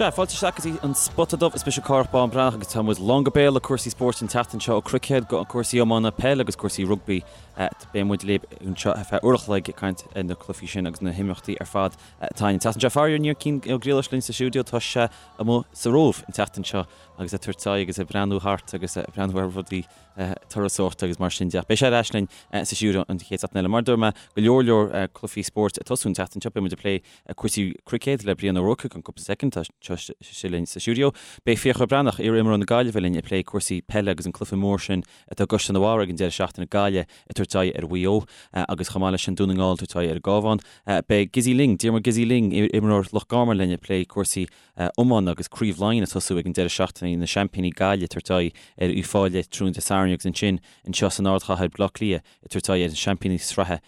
Sea, fáilte isteach go dtí an Spota Dubh. Is mise Cárthach Bán Breathnach agus tá muid lán go béal le cúrsaí spóirt an tseachtain seo ó cruicéad go cúrsaí iomána, peil agus cúrsaí rugbaí. Beidh muid libh anseo ar feadh uair a chloig ag caint ar na cluichí sin agus na himeachtaí ar fad atá ann an tseachtain seo. Faraor níl Cian Ó Griallais linn sa stiúideo, tá sé amuigh sa Róimh an tseachtain seo agus ag tabhairt aghaidh agus ag breathnú thart agus ag breathnú ar rudaí turasóireachta agus mar sin de. Beidh sé ar ais linn sa stiúideo an chéad seachtain eile. Mar a dúirt mé, go leor leor cluichí spóirt ag tosú an tseachtain seo. Beidh muid ag plé cúrsaí cruicéid le Brian Ó Ruairc i gceann cúpla soicind, tá sé linn sa stiúideo. Beidh Fiachra Breathnach, iar-imreoir na Gaillimhe linn ag plé cúrsaí peile agus an cluiche mór sin atá i gCaisleán an Bharraigh ag an deireadh seachtaine, Gaillimh ag tabhairt aghaidh ar Mhaigh Eo agus chomh maith leis sin Dún na nGall ag tabhairt aghaidh ar an gCabhán. Beidh Gizzy Lyng, Diarmuid Gizzy Lyng, iar-imreoir Loch Garman linn ag plé cúrsaí iomána agus Craobh Laighean ag tosú ag an deireadh seachtaine, na seaimpíní Gaillimh ag tabhairt aghaidh ar Uíbh Fhailí tráthnóna Dé Sathairn agus ansin anseo san ardchathair Baile Átha Cliath ag tabhairt aghaidh ar na seaimpíní sraithe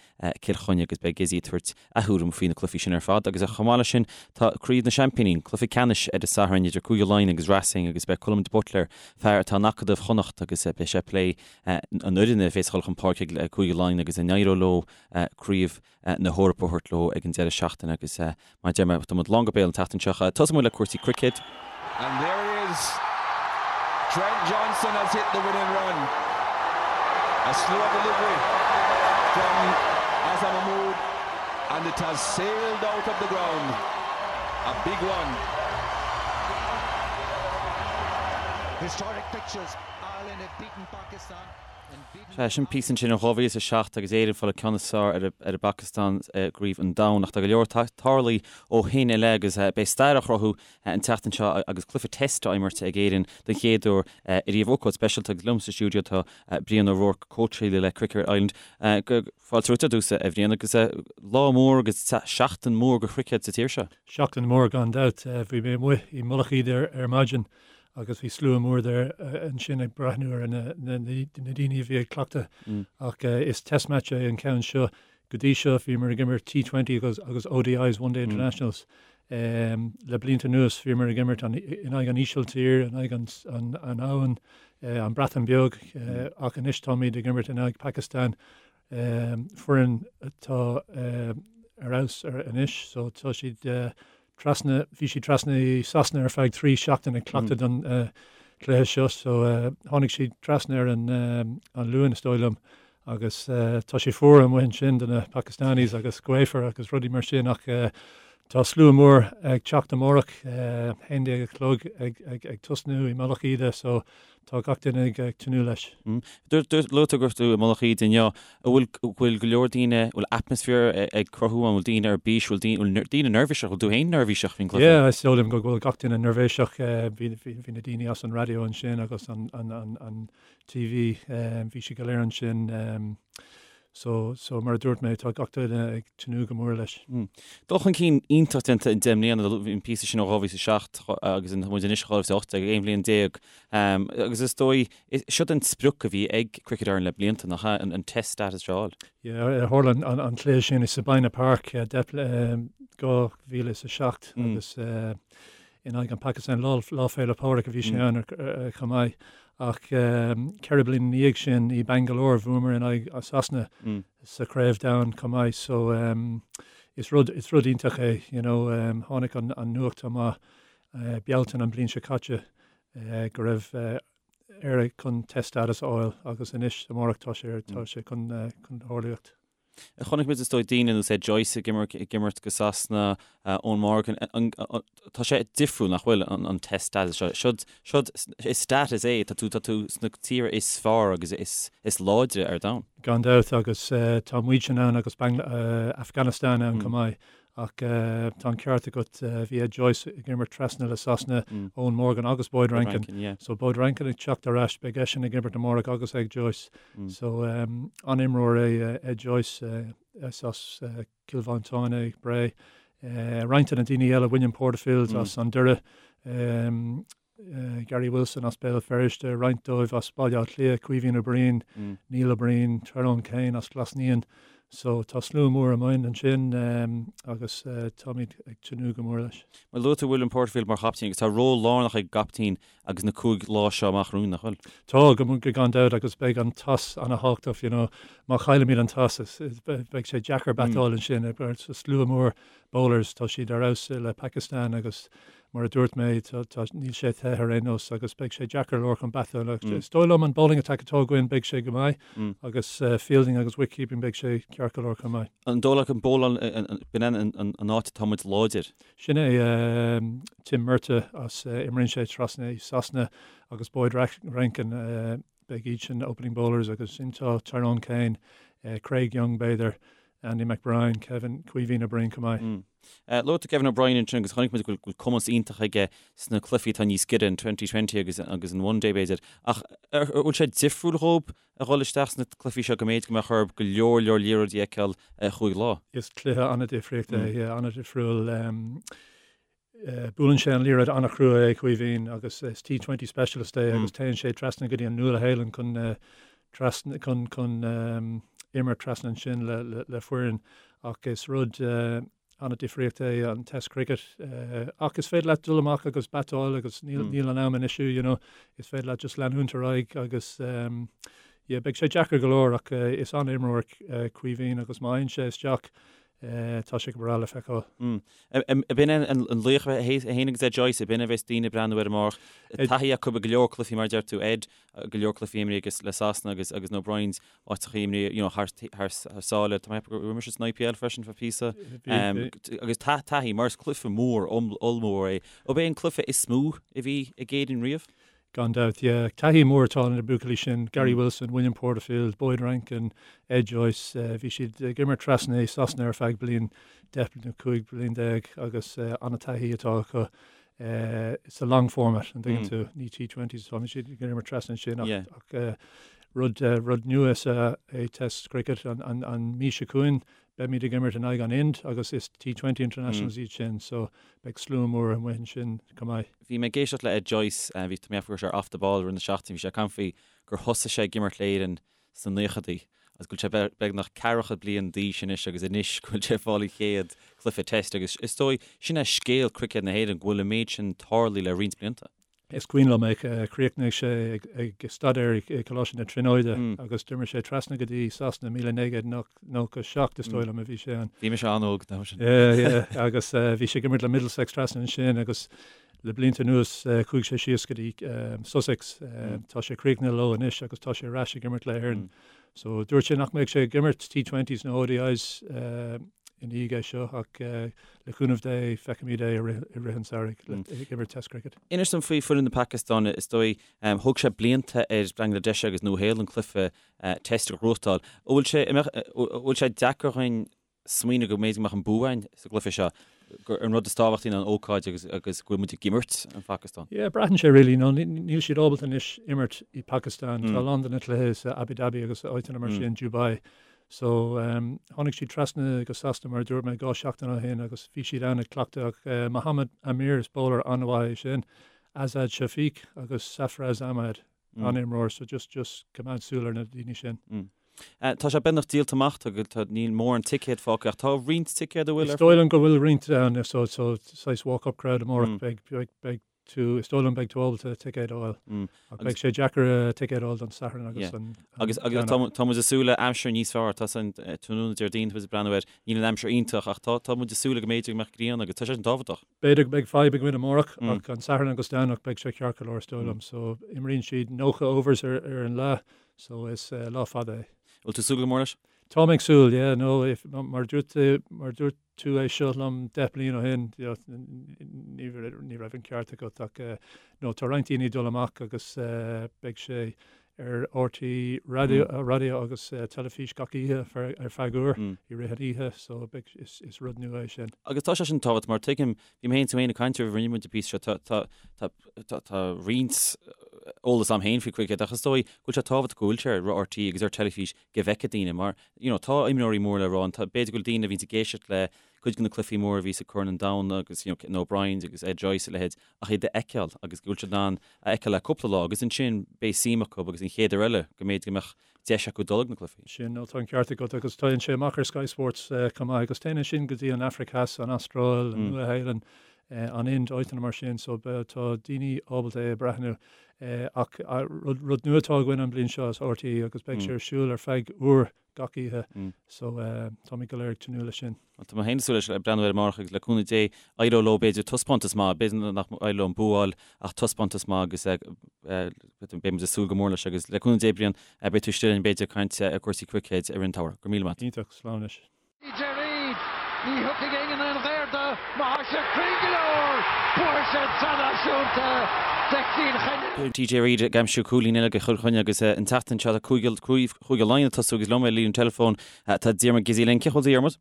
Cill Chainnigh agus beidh Gizzy ag tabhairt a thuairim faoi na cluichí sin ar fad agus chomh maith leis sin tá Craobh na Seaimpíní, an cluiche ceannais ar an Satharn idir Cúige Laighean agus Racing agus beidh Colm de Buitléar, fear atá in Acadamh Chonnacht agus beidh sé ag plé an fhoireann a bhéas ag dul chun páirce ag Cúige Laighean agus an éireoidh leo Craobh na hEorpa a thabhairt leo ag an deireadh seachtaine agus mar a deir mé, tá muid lán go béal an tseachtain seo. Tosóidh muid le cúrsaí cruicéid. And there it is. Trent Johnson has hit the winning run. A slow delivery from Azhar Mahmood and it has sailed out of the ground. A big one. Historic pictures. Ireland have beaten Pakistan. Sea, sin píosa ansin ó 2007 agus Éire ag fáil an ceann is fearr ar an bPacastáin i gCraobh an Domhain. Ach tá go leor tarlaithe ó shin i leith agus beidh stair á chruthú an tseachtain seo agus cluiche Test á imirt ag Éirinn den chéad uair ariamh. Ócáid speisialta agus liom sa stiúideo tá Brian O'Rourke, cóitseálaí le Cricket Ireland. Fáilte romhat ar dtús, a Bhriain, agus lá mór agus seachtain mhór do chruicéad sa tír seo. Seachtain mhór gan dabht. Bhí mé amuigh i Mullach Íde ar maidin agus bhí slua mór there ansin ag breathnú ar na daoine a bhí ag cleachtadh ach is test match é an ceann seo. Go dtí seo bhíomar ag imirt T20 agus agus ODIs, One Day Internationals. Le blianta anuas bhíomar ag imirt in aghaidh an Ísiltír, in aghaidh an Abhainn, an Breatain Beag ach anois táimid ag imirt in aghaidh Pakistan, foireann atá ar fheabhas anois so tá siad trasna, bhí siad trasna i Sasana ar feadh 3 seachtain ag cleachtadh don chluiche seo so tháinig siad trasna ar an an Luan is dóigh liom agus tá sé fuar amuigh ansin do na Pakistanis agus gaofar agus rudaí mar sin ach tá slua mór ag teacht amárach, 11 a chlog ag ag ag tosnú i Mullach Íde so Tá gach duine ag tnúth leis. Luaigh tú go raibh tú i Mullach Íde inniu. An bhfuil, bhfuil go leor daoine, an bhfuil atmaisféar ag cruthú ann, an bhfuil daoine ar bís, an bhfuil daoine, bhfuil daoine neirbhíseach, bhfuil tú féin neirbhíseach faoin gcluiche? Yeah, is dóigh liom go bhfuil gach duine neirbhíseach. Bhí, bhí, bhí na daoine as an raidió ansin agus an, an, an, an TV, bhí siad go léir ansin. So, so mar a dúirt mé, tá gach duine ag tnúth go mór leis. Dul chun cinn iontach déanta in 10 mbliana, bhí an píosa sin ó 2007 agus tá muid anois i 2018, 11 bhliain. Agus is dóigh, siod an sprioc a bhí ag Cricket Ireland le blianta, nach ea, an test status seo a fháil? Yeah, tharla an cluiche sin i Sabina Park, 2007 agus in aghaidh an Pakistan, Lá Féile Pádraig a bhí sé ann chomh maith. Ach 4 bliana ina dhiaidh sin i Bangalore bhuamar in aghaidh Sasana sa chraobh domhain chomh maith. So is rud is rud iontach é you know tháinig an an nuacht amach Bealtaine an bliain seo caite go raibh Éire chun test status a fháil agus anois amárach tá sé tá sé chun chun tarlúint. Chonaic muid is dóigh daoine ar nós Ed Joyce ag imirt ag imirt do Sasana, Eoin Morgan, tá sé difriúil nach bhfuil an test status seo. Siod siod is status é, tá tú tá tú sna tíortha is fearr agus is is láidre ar domhan. Gan dabht agus tá muidne ann agus Afghanistan ann chomh maith Ach tá an ceart agat, bhí Ed Joyce ag imirt trasna le Sasana, Eoin Morgan agus Boyd Rankin. So Boyd Rankin ag teacht ar ais, beidh eisean ag imirt amárach agus Ed Joyce. So an-imreoir é Ed Joyce, is as Cill Mhantáin é, Bré. Roinnt de na daoine eile, William Porterfield as an Doire, Gary Wilson as Béal Feirste, roinnt dóibh as Baile Átha Cliath, Caoimhín Ó Briain, Neil Ó Briain, Tyrone Kane as Glas Naíon. So tá slua mór amuigh ansin agus táimid ag tnúth go mór leis. Mar luaigh tú William Porterfield mar chaptaen agus tá ról lárnach ag an gcaptaen agus na 5 lá seo amach romhainn, nach bhfuil? Tá, go gan dabht agus beidh an toss ana-thábhachtach, you know. Má chaillimid an toss beidh sé deacair batáil ansin. Slua mór bowlers, tá siad ar fheabhas le Pakistan agus. mar a dúirt mé, tá, níl sé te ar aon nós agus beidh sé deacair go leor chun batáil ach is dóigh liom an bowling attack atá againn beidh sé go maith agus fielding agus wicketkeeping beidh sé ceart go leor chomh maith. An dóigh leat an bowláil, b'in an áit atá muid láidir? Sin é Tim Murtagh as, imríonn sé trasna i Sasana agus Boyd Rankin, beidh iad sin opening bowlers agus ansin tá Tyrone Kane, Craig Young b'fhéidir, Andy McBrine, Kevin, Caoimhín Ó Broin chomh maith. Luaigh tú Kevin O'Brien ansin agus chonaic muid go bhfuil cumas iontach aige sna cluichí atá níos giorra, an Twenty Twenty agus an One Day b'fhéidir. Ach an bhfuil sé difriúil dhóib a dhul isteach sna cluichí seo go mb'fhéidir go mbeadh orthu go leor leor liathróidí a fheiceáil ar chúig lá? Is cluiche an-difríocht é, yeah, an-difriúil. Buaileann sé an liathróid an-chrua é Caoimhín agus is T20 specialist é agus téann sé trasna go dtí an Nua-Shéalainn chun trasna chun chun imirt trasna ansin le le le foireann ach is rud an-difríocht é an Test Cricket ach is féidir leat dul amach agus batáil agus níl níl an am in issue you know is féidir leat just leanúint ar aghaidh agus yeah beidh sé deacair go leor ach is an-imreoir Caoimhín agus má fhaigheann sé isteach tá sé go breá le feiceáil. Ab in é an laoch é féin agus Ed Joyce, ab in a bheas daoine ag breathnú air amárach. Taithí acu i go leor cluichí mar a deir tú, Ed, go leor cluichí imrithe aige le Sasana agus agus na O'Briens, áiteacha imrithe you know thar thar sáile. Tá mé ag ceapadh gur imir sé san IPL freisin feadh píosa. Agus taithí mar is cluiche mór ollmhór é. Ab é an cluiche is mó a bhí ag Éirinn riamh? Gan dabht, yeah. Taithí mór atá na buachaillí sin, Gary Wilson, William Porterfield, Boyd Rankin, Ed Joyce. Bhí siad ag imirt trasna i Sasana ar feadh bliain, 10 nó 15 bliain agus an-taithí atá acu sa long format, an dtuigeann tú? Ní T20s atá siad ag imirt trasna ansin ach rud rud nua is ea é Test Cricket. An mí seo chugainn Beimid ag imirt in aghaidh an Ind agus is T20 Internationals iad sin so beidh slua mór amuigh ansin chomh maith. Bhí mé ag éisteacht le Ed Joyce, bhí, tá mé ag ceapadh go raibh sé ar Off the Ball i rith na seachtaine, bhí sé ag caint faoi gur thosaigh sé ag imirt le Éirinn sna naochadaí agus go bhfuil sé beagnach ceathracha bliain d'aois anois agus anois go bhfuil sé ag fáil a chéad chluiche Test agus is dóigh sin é scéal cruicéad na hÉireann go bhfuil an méid sin tarlaithe le roinnt blianta. Is cuimhin liom é, chríochnaigh sé ag staidéar i Coláiste na Tríonóide agus d'imir sé trasna go dtí Sasana 1997 is dóigh liom a bhí sé ann. Bhí mise an-óg an t-am sin. Yeah, yeah, agus bhí sé ag imirt le Middlesex trasna ansin agus le blianta anuas chuaigh sé síos go dtí Sussex. Tá sé críochnaithe leo anois agus tá sé ar ais ag imirt le Éirinn. So dúirt sé nach mbeadh sé ag imirt T20s nó ODIs i ndiaidh é seo ach le cúnamh Dé feicfimid é i rith an tsamhraidh ag imirt Test Cricket. Inis dom faoi foireann na Pacastáine, is dóigh, thóg sé blianta ar Bangladesh agus Nua-Shéalainn cluiche Test a ghnóthachtáil. An bhfuil sé, an bhfuil sé deacair dhuinn smaoineamh go mb'fhéidir go mbeadh an bua againn sa gcluiche seo, gur an rud is tábhachtaí ná an ócáid agus agus go bhfuil muid ag imirt an Phacastáin? Yeah, braitheann sé really, nó níl siad ábalta anois imirt i Pakistan. Tá a lán de na cluichí sa Abu Dhabi agus áiteanna mar sin, Dubai. So, tháinig siad trasna go Sasana, mar a dúirt mé, 2 seachtain ó shin agus bhí siad ann ag cleachtadh ach Mohammad Amir, is bowler an-mhaith é sin, Azad Shafiq agus Safraz Ahmed, an-imreoir, so just, just coimeád súil ar na daoine sin. Tá sé beagnach díolta amach, tá, tá, níl mórán ticéad fágtha ach tá roinnt ticéad a bhfuil ar Is dóigh liom go bhfuil roinnt ann, so, so, saghas walk-up crowd amárach, beidh, beidh, beidh tú, is dóigh liom beidh tú ábalta ticéad a fháil. Ach beidh sé deacair ticéad a fháil don Satharn agus an Agus agus tá tá muid ag súil le aimsir níos fearr, tá san tráthnóna Déardaoin tá muid ag breathnú air, níl an aimsir iontach ach tá tá muid ag súil go mb'fhéidir go mbeadh grian agus tá sé sin tábhachtach. B'fhéidir go mbeidh fadhb againn amárach ach an Satharn agus Domhnach beidh sé ceart go leor is dóigh liom. So imríonn siad 90 overs ar ar an lá so is lá fada é. Bhfuil tú ag súil go mór leis? Tá mé ag súil, yeah, no, if, mar dúirt mar dúirt tú é seo liom 10 bliain ó shin, ní raibh an ceart agat ach no tá roinnt daoine ag dul amach agus beidh sé ar RTÉ raidió agus teilifís gach oíche ar feadh uair i rith an oíche so beidh is rud nua é sin. Agus tá sé sin tábhachtach mar tuigim, bhí mé féin tú féin ag caint roimh rinne muid an píosa seo, tá tá tá tá tá roinnt eolas a'm féin faoi cruicéad ach is dóigh go bhfuil sé tábhachtach go bhfuil sé ar RTÉ agus ar teilifís go bhfeicfidh daoine mar you know tá imreoirí mór le rá ann, tá, b'fhéidir go bhfuil daoine a bhíonns ag éisteacht le cuid de na cluichí móra a bhí sa Corn an Domhain agus you know na O'Briens agus Ed Joyce a leithéid ach iad a fheiceáil agus go bhfuil siad in ann a fheiceáil le cúpla lá agus ansin beidh suim acu agus an chéad uair eile go mb'fhéidir go mbeadh deis acu dul ag na cluichí. Sin, nó tá an ceart agat agus téann sé amach ar Sky Sports chomh maith agus téann ansin go dtí an Afraic Theas, an Astráil, an Nua-Shéalainn, an Ind, áiteanna mar sin so tá daoine ábalta é a breathnú. Ach rud nua atá againn an bhliain seo is RTÉ agus beidh sé ar siúl ar feadh uair gach oíche so táimid go léir ag tnúth leis sin. Bhuel tá mé féin ag súil leis ag breathnú air amárach agus le cúnamh Dé éireoidh leo b'fhéidir taispeántas maith, b'fhéidir nach éireoidh leo an bua a fháil ach taispeántas maith agus beidh muid ag súil go mór leis agus le cúnamh Dé Brian beidh tú istigh linn b'fhéidir ag caint ar cúrsaí cruicéid i rith an tsamhraidh. Go raibh míle maith. Iontach, slán anois. TJ Reid, Ní thiocfaidh éinne aon ghair do má thá sé cruinn go leor, buafaidh sé an tSraith Náisiúnta do Chill Chainnigh. TJ Reid ag aimsiú cúilín eile do Chill Chainnigh agus an tseachtain seo tá Cúige Laighean ag tosú agus liom ar líne an teileafóin tá Diarmuid Gizzy linn. Cén chaoi a bhfuil tú a Dhiarmuid?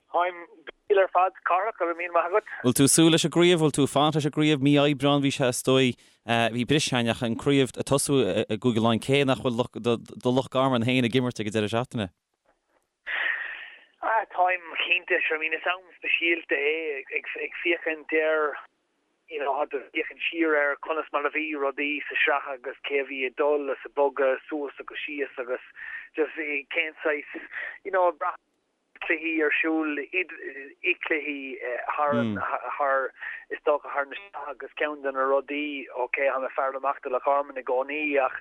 Táim go diail ar fad, Cárthach, go raibh míle maith agat. Bhfuil tú ag súil leis an gcraobh? Bhfuil tú ag fanacht leis an gcraobh? Mí Aibreán bhí sé is dóigh. Bhí briseadh againn ach an craobh ag tosú i gCúige Laighean cé nach bhfuil do Loch Garman féin ag imirt ag an deireadh seachtaine. Ah, táim cinnte, sure, I mean is am speisialta é ag féachaint ar, you know, ag féachaint siar ar conas mar a bhí rudaí sa sraith agus cé a bhí ag dul is ag bogadh suas agus síos agus just cén saghas, you know, ag brath cluichí ar siúl, i cluichí thar an, thar, is dócha thar na sraith agus ceann de na rudaí, ok, tá mé fear amach do Loch Garman i gcónaí ach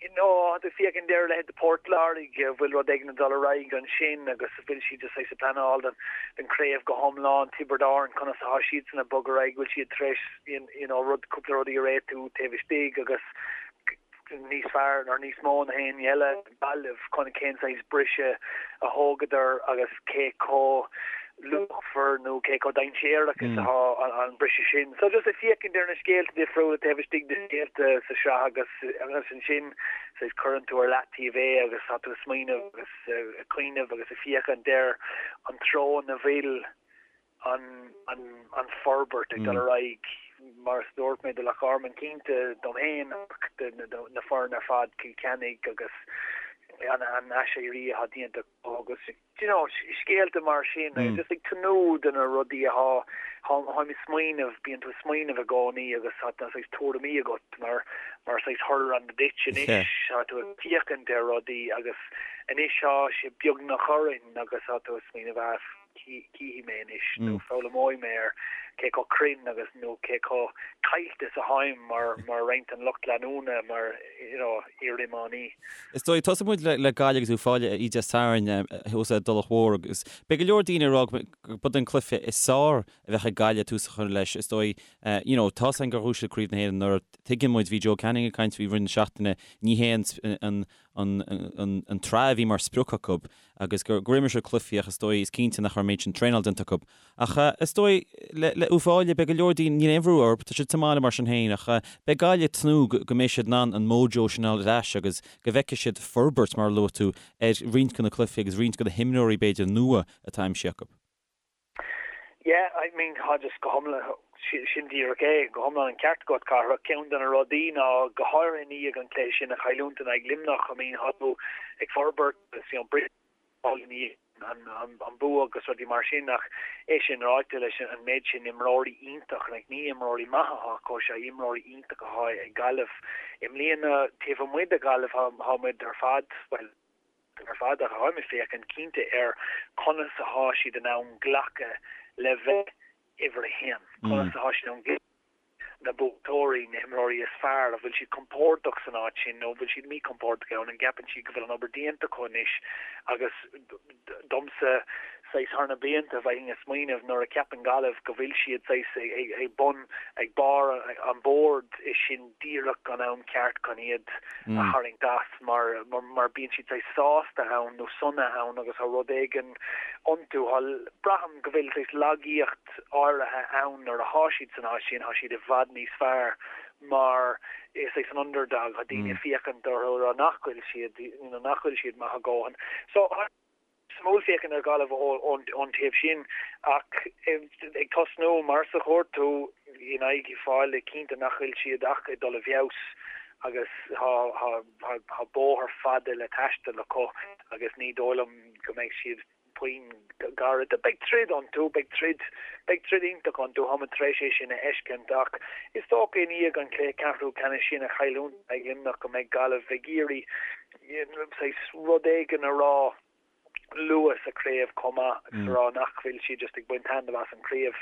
you know, tá tú ag féachaint ar a leithéid de Port Láirge, an bhfuil rud éigin ag dul ar aghaidh ansin agus an bhfuil siad just saghas ag pleanáil don, don craobh go hiomlán, Tiobraid Árann, conas atá siadsan ag bogadh ar aghaidh, bhfuil siad tar éis you know, rud, cúpla rudaí a réitiú taobh istigh agus níos fearr nó níos mó ná éinne eile. Gaillimh, chun cén saghas briseadh a thógadar agus cé chomh luachmhar nó cé chomh dainséarach is atá an briseadh sin. So just ag féachaint ar na scéalta difriúla taobh istigh de scéalta sa sraith agus agus ansin saghas cuireann tú ar leataobh é agus tá tú ag smaoineamh agus ag cuimhneamh agus ag féachaint ar an treo ina bhfuil an forbairt ag dul ar aghaidh, mar a dúirt mé, do Loch Garman, cinnte dom féin ach do na foirne ar fad, Cill Chainnigh agus an aiséirí atá déanta acu agus you know scéalta mar sin agus just ag tnúth do na rudaí atá, táim ag smaoineamh, bíonn tú ag smaoineamh i gcónaí agus tá saghas tuairimí agat mar mar saghas tharla duit anois, tá tú ag féachaint ar rudaí agus anois tá sé beagnach orainn agus tá tú ag smaoineamh ah, cífidh mé anois nó foghlaimeoidh mé ar cé chomh cruinn agus nó cé chomh caillte is atáim mar mar roinnt den lucht leanúna mar you know iar-iománaí. Is dóigh, tosóidh muid le Gaillimh agus Uíbh Fhailí oíche Dé Sathairn thuas i dTulach Mhór agus beidh go leor daoine ag rá gurb é an cluiche is fearr a bheadh ag Gaillimh tús a chur leis. Is dóigh, you know, tá's againn gur bhuaigh siad Craobh na hÉireann anuraidh. Tuigeann muid, bhí Joe Canning ag caint faoi i rith na seachtaine, ní hé an an an tsraith a bhí mar sprioc acu agus gur gur imir siad cluichí ach is dóigh, is cinnte nach raibh an méid sin traenáil déanta acu. Ach is dóigh, le le Uíbh Fhailí, beidh go leor daoine, níl aon bhrú orthu, tá siad sa mbaile mar sin féin ach beidh Gaillimh ag tnúth go go mbeidh siad in ann an mojo sin a fháil ar ais agus go bhfeicfidh siad forbairt, mar a luaigh tú, ar roinnt de na cluichí agus roinnt de na himreoirí b'fhéidir nua atá aimsithe acu. Yeah, I mean, tá just go hiomlán, sin díreach é, go hiomlán an ceart agat, Cárthach. Ceann de na rudaí ná, go háirithe i ndiaidh an cluiche sin a chailliúint in aghaidh Luimneach, I mean, tá tú ag forbairt agus, you know, briseadh i ndiaidh an bua agus rudaí mar sin ach é sin ráite leis an méid sin imreoirí iontach, like, ní imreoirí maithe atá acu, sea, imreoirí iontach atá ag Gaillimh. I mbliana, taobh amuigh de Ghaillimh, tá muid ar fad, bhuel, ar fad ach táim ag féachaint cinnte ar conas athá siad in ann glacadh le bheith uimhir a haon, conas athá siad in ann glacadh na buaiteoirí, na himreoirí is fearr, an bhfuil siad compordach san áit sin nó an bhfuil siad míchompordach ann, an gceapann siad go bhfuil an obair déanta acu anois agus domsa saghas thar na blianta bheinn ag smaoineamh nuair a cheapann Gaillimh go bhfuil siad saghas ag bun, ag barr an bhoird is sin díreach an am ceart chun iad a tharraingt as mar mar bíonn siad saghas sásta ann nó sona ann agus tá rud éigin iontu. Tá, braithim go bhfuil saghas lagaíocht áirithe ann nuair athá siad san áit sin, tá siad i bhfad níos fearr mar is saghas an underdog, tá daoine ag féachaint orthu ag rá nach bhfuil siad, you know, nach bhfuil siad maith a dhóthain. So, Suimiúil féachaint ar Ghaillimh ón taobh sin ach ag tosnú mar a dúirt tú in aghaidh Uíbh Fhailí cinnte nach bhfuil siad ach ag dul i bhfeabhas agus tá bóthar fada le taisteal acu agus ní dóigh liom go mbeidh siad puinn gairid. Beidh troid iontu, beidh troid, beidh troid iontach iontu, táimid tar éis é sin a fheiscint ach is dócha i ndiaidh an cluiche ceathrú ceannais sin a chailliúint in aghaidh Luimneach go mbeidh Gaillimh ag iarraidh saghas rud éigin a rá luath sa chraobh chomh maith agus a rá nach bhfuil siad just ag baint taitneamh as an chraobh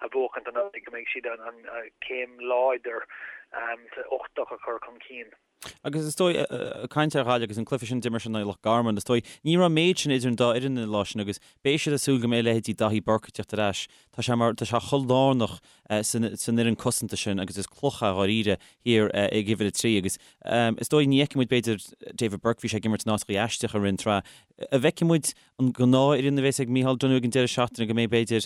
a bhuachaint anuraidh, go mbeidh siad an céim láidir. uchtach a chur chun cinn. Agus is dóigh, ag caint ar Ghaillimh agus an cluiche sin a d'imir siad in aghaidh Loch Garman, is dóigh, ní raibh an méid sin idir an dá fhoireann an lá sin agus beidh siad ag súil go mbeidh leithéidí Daithí Burke ag teacht ar ais. Tá sé mar, tá sé chomh lárnach san fhoireann cosanta sin agus is cloch é dháiríre thiar ag uimhir a 3 agus is dóigh ní fheicfidh muid b'fhéidir David Burke, bhí sé ag imirt in áiteachaí aisteach i rith an tsraith. An bhfeicfidh muid an gnáthfhoireann a bheas ag Micheál Donoghue ag an deireadh seachtaine, go mbeidh b'fhéidir,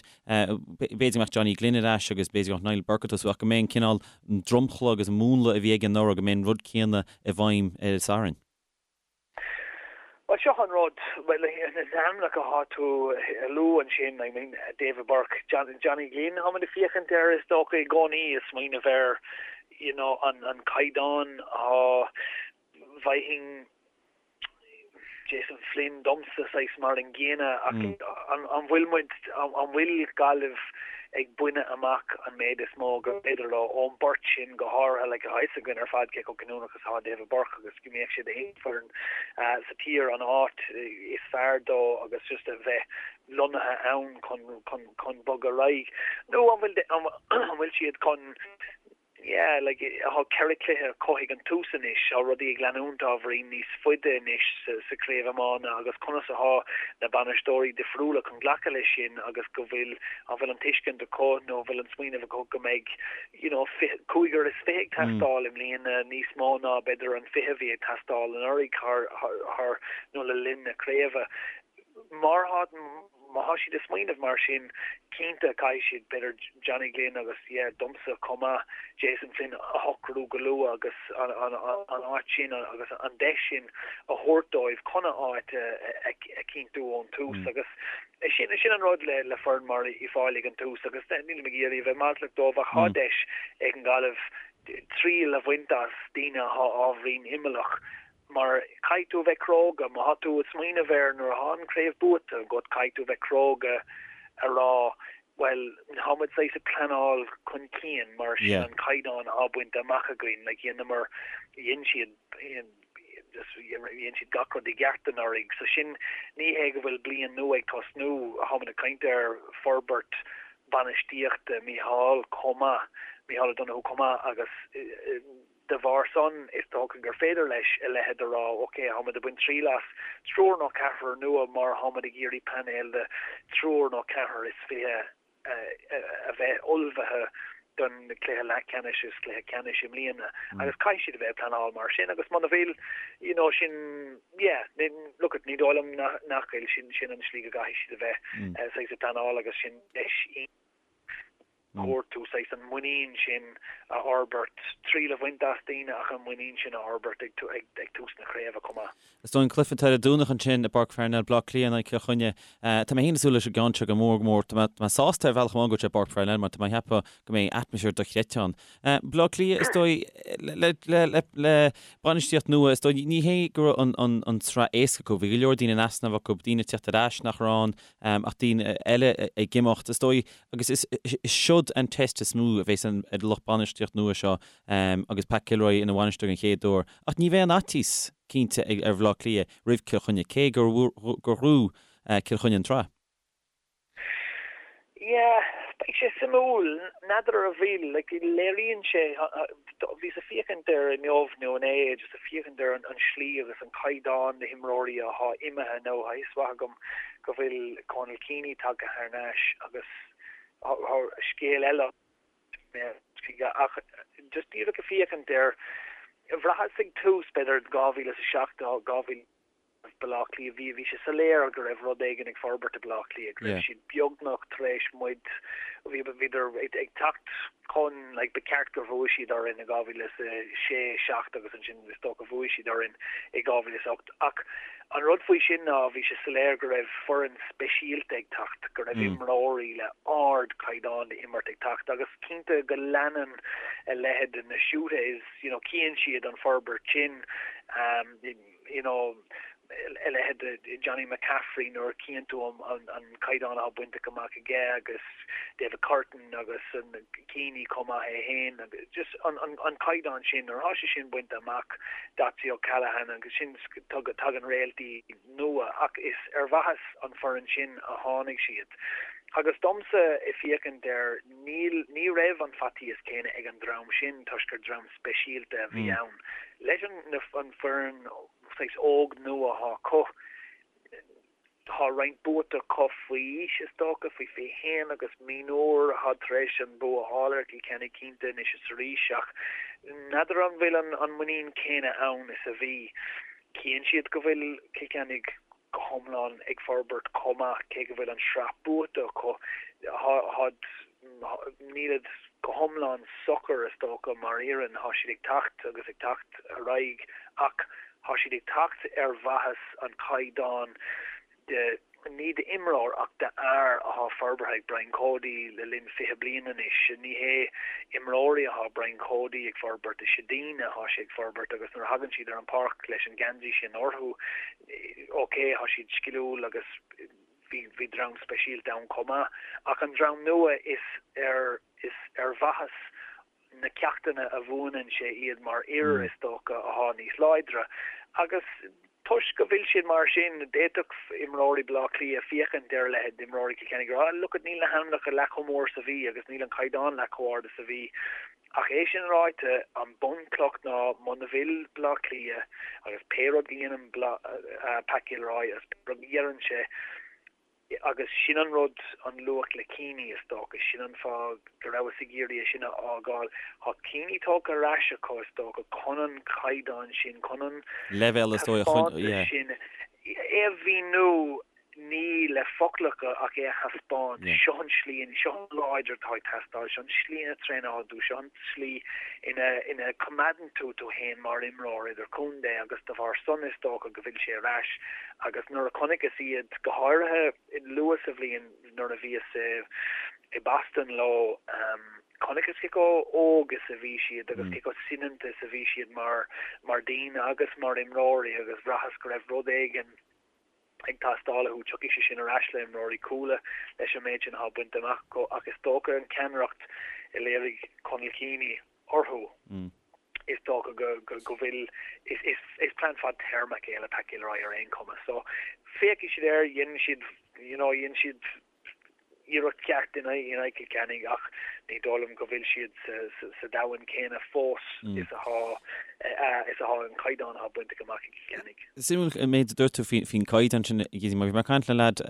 b'fhéidir go mbeadh Johnny Glynn ar ais agus b'fhéidir go mbeadh Niall Burke ag tosú ach go mbeidh an cineál dromchla agus an múnla a bhí aige anuraidh, go mbeidh an rud céanna i bhfeidhm ar an Satharn. Bhuel, seo an rud, bhuel, na hainmneacha atá tú a lua ansin, I mean, David Burke, Johnny Glynn, tá muid ag féachaint air is dócha i gcónaí, ag smaoineamh ar, you know, an caighdeán atá, bhfaighinn Jason Flynn domsa saghas mar an gcéanna ach an bhfuil muid, an bhfuil Gaillimh ag baineadh amach an méid is mó gur féidir leo ón bport sin go háirithe, like tá fhios againn ar fad cé chomh cinniúnach is atá David Burke agus go mbeadh sé d'aon foireann sa tír an áit is fearr dó agus just a bheith lonnaithe ann chun chun bogadh ar aghaidh nó an bhfuil an bhfuil siad chun Yeah, like, tá 4 cluiche acu ag an tús anois, tá rudaí ag leanúint ábhairín níos faide anois sa chraobh iomána agus conas atá na bainisteoirí difriúla chun glacadh leis sin agus go bhfuil, an bhfuil an tuiscint acu nó an bhfuil an smaoineamh acu go mbeidh, you know, 25 ag teastáil i mbliana níos mó ná b'fhéidir an 20 a bhí ag teastáil anuraidh thar, thar, nó le linn na craoibhe. Mar tá. Má thá siad ag smaoineamh mar sin, cinnte caithfidh siad, b'fhéidir Johnny Glynn agus, yeah, domsa chomh maith, Jason Flynn a shocrú go luath agus an áit sin agus an deis sin a thabhairt dóibh chun a áit a chinntiú ón tús agus sin, sin an rud le foireann mar Uíbh Fhailí ag an tús agus nílim ag iarraidh a bheith maslach dóibh ach thá deis ag an Ghaillimh triail a bhaint as daoine athá ábhairín imeallach Mar caithfidh tú a bheith cróga, má thá tú ag smaoineamh air nuair athá an craobh buaite agat, caithfidh tú a bheith cróga a rá, bhuel, thá muid saghas ag pleanáil chun cinn mar sin an caighdeán athá bainte amach againn, like dheineamar, dhein siad, just dhein siad gach rud i gceart anuraidh. So sin, ní hé go bhfuil bliain nua ag tosnú, thá muid ag caint ar forbairt bainistíochta Mícheál chomh maith, Mícheál O'Donoghue chomh maith agus, De bharr san, is dócha gur féidir leis a leithéid a rá, ok, táimid ag baint triail as triúr nó ceathrar nua mar táimid ag iarraidh painéal de thriúr nó ceathrar is 20 a bheith ullmhaithe don chluiche leathcheannais is cluiche ceannais i mbliana agus caithfidh siad a bheith ag pleanáil mar sin agus muna bhfuil, you know, sin, yeah, look it, ní dóigh liom nach bhfuil, sin, sin an slí go gcaithfidh siad a bheith saghas ag pleanáil agus sin deis thabhairt tú saghas an muinín sin a fhorbairt, triail a bhaint as daoine ach an muinín sin a fhorbairt ag tús na craoibhe chomh maith. Is dóigh an cluiche atá ar an Domhnach ansin i bPáirc Pharnell, Bleá Cliath in aghaidh Cill Chainnigh. Tá mé féin ag súil leis an gceann seo go mór go mór. Tá mé sásta ar bhealach amháin go bhfuil sé i bPáirc Pharnell mar tá mé ag ceapadh go mbeidh atmaisféar dochreidte ann. Bleá Cliath, is dóigh, le bainistíocht nua, is dóigh, ní hé go raibh an tsraith éasca acu. Bhí go leor daoine in easnamh acu, daoine ag teacht ar ais nach raibh ann ach daoine eile ag imeacht, is dóigh. Agus is siod an test is mó a bheas ar an lucht bainistíocht nua seo agus Pat Gilroy ina bhainisteoir den chéad uair. Ach ní bheidh an fhaitíos cinnte ar Bhaile Átha Cliath roimh Cill Chainnigh, cé gur ghnóthaigh Cill Chainnigh an tsraith. Yeah, beidh sé suimiúil. N'fheadar an bhfuil, like, léiríonn sé, bhíos ag féachaint air inniu nó inné, just ag féachaint ar an slí agus an caighdeán na himreoirí athá imithe nó tá fhios mhaith agam go bhfuil Conal Keaney tagtha thar n-ais agus scéal eile ach just díreach ag féachaint air, bhraitheas ag tús b'fhéidir 2007, 2000 Baile Átha Cliath, bhí bhí sé soiléir go raibh rud éigin ag forbairt i Baile Átha Cliath, go raibh siad beagnach tar éis muid, bhí bhíodar ag teacht chun, like, ba cheart gur bhuaigh siad orainn i 2006, 7 agus ansin is dócha bhuaigh siad orainn i 2008 ach An rud faoi sin ná bhí sé soiléir go raibh foireann speisialta ag teacht, go raibh imreoirí le ardchaighdeán d'imirt ag teacht agus cinnte go leanann a leithéid de na Schuttes, you know, cíonn siad an forbairt sin, you know, a leithéid de Johnny McCaffrey nuair a cíonn tú an caighdeán atá bainte amach aige agus David Curtin agus an Keaney chomh maith é féin agus just an caighdeán sin nuair atá sé sin bainte amach Dotsy O'Callaghan agus sin tagann réaltaí nua ach is ar mhaitheas an foireann sin a tháinig siad. Agus domsa, ag féachaint air, níl, ní raibh an faitíos céanna ag an dream sin toisc gur dream speisialta a bhí ann. Leis an, na, an foireann saghas óg nua athá acu, tá roinnt buaite acu faoi aois is dócha, faoi 21 agus mionúir athá tar éis an bua a fháil ar Chill Chainnigh cinnte anois is arís ach n'fheadar an bhfuil an, an muinín céanna ann is a bhí. Chíonn siad go bhfuil Cill Chainnigh go hiomlán ag forbairt chomh maith, cé go bhfuil an sraith buaite acu, nílid go hiomlán socair, is dócha, mar fhoireann. Tá siad ag teacht agus ag teacht ar aghaidh ach tá siad ag teacht ar mhaitheas an chaighdeáin de, ní d'imreoir ach d'fhear athá forbartha ag Brian Cody le linn 20 bliain anois. Ní hé imreoirí athá Brian Cody ag forbairt, is ea daoine athá sé ag forbairt agus nuair a thagann siad ar an pháirc leis an geansaí sin orthu, ok, tá siad sciliúil agus bhí, bhí dream speisialta ann chomh maith, ach an dream nua is ar, is ar mhaitheas na ceachtanna a mhúineann sé iad mar fhir, is dócha, athá níos láidre. Agus toisc go bhfuil siad mar sin, d'fhéadfadh imreoirí Bhaile Átha Cliath féachaint ar a leithéid d'imreoirí Chill Chainnigh ag rá, look it, níl na hainmneacha leath chomh mór is a bhí agus níl an caighdeán leath chomh ard is a bhí. Ach é sin ráite, an bunchloch ná muna bhfuil Baile Átha Cliath agus pé rud a dhéanann Pat Gilroy agus pé rud a dheireann sé, agus sin an rud, an luach le Keaney is dócha, sin an fáth go rabhas ag iarraidh é sin a fhágáil. Tá Keaney tógtha ar ais acu is dócha chun an caighdeán sin, chun an leibhéal is dóigh taispeántas sin, é a mhíniú ní le foclacha ach é a thaispeáint, seo an slí, seo an láidre atá ag teastáil, seo an slí ina traenálann tú, seo an tslí ina ina coimeádann tú tú féin mar imreoir idirchontae agus de bharr san is dócha go bhfuil sé ar ais agus nuair a chonaiceas iad, go háirithe luath sa bhliain nuair a bhíos i i Boston leo, chonaiceas cé chomh óg is a bhí siad agus cé chomh soineanta is a bhí siad mar mar daoine agus mar imreoirí agus bhraitheas go raibh rud éigin ag teastáil uathu. Tiocfaidh sé sin ar ais le imreoirí Cuala leis an méid sin atá bainte amach acu ach is dócha an ceannaireacht a léirigh Conal Keaney orthu, is dócha go go bhfuil, is plean fadtéarmach é le Pat Gilroy ar aon chuma. So féachfaidh siad air, dhein siad, you know, dhein siad iarracht cheart in aghaidh Chill Chainnigh ach ní dóigh liom go bhfuil siad sa domhan céanna fós is atá is atá an caighdeán atá bainte amach ag Cill Chainnigh. Suimiúil an méid a dúirt tú faoin gcaighdeán sin, a Gizzy, mar bhí mé ag caint le leaid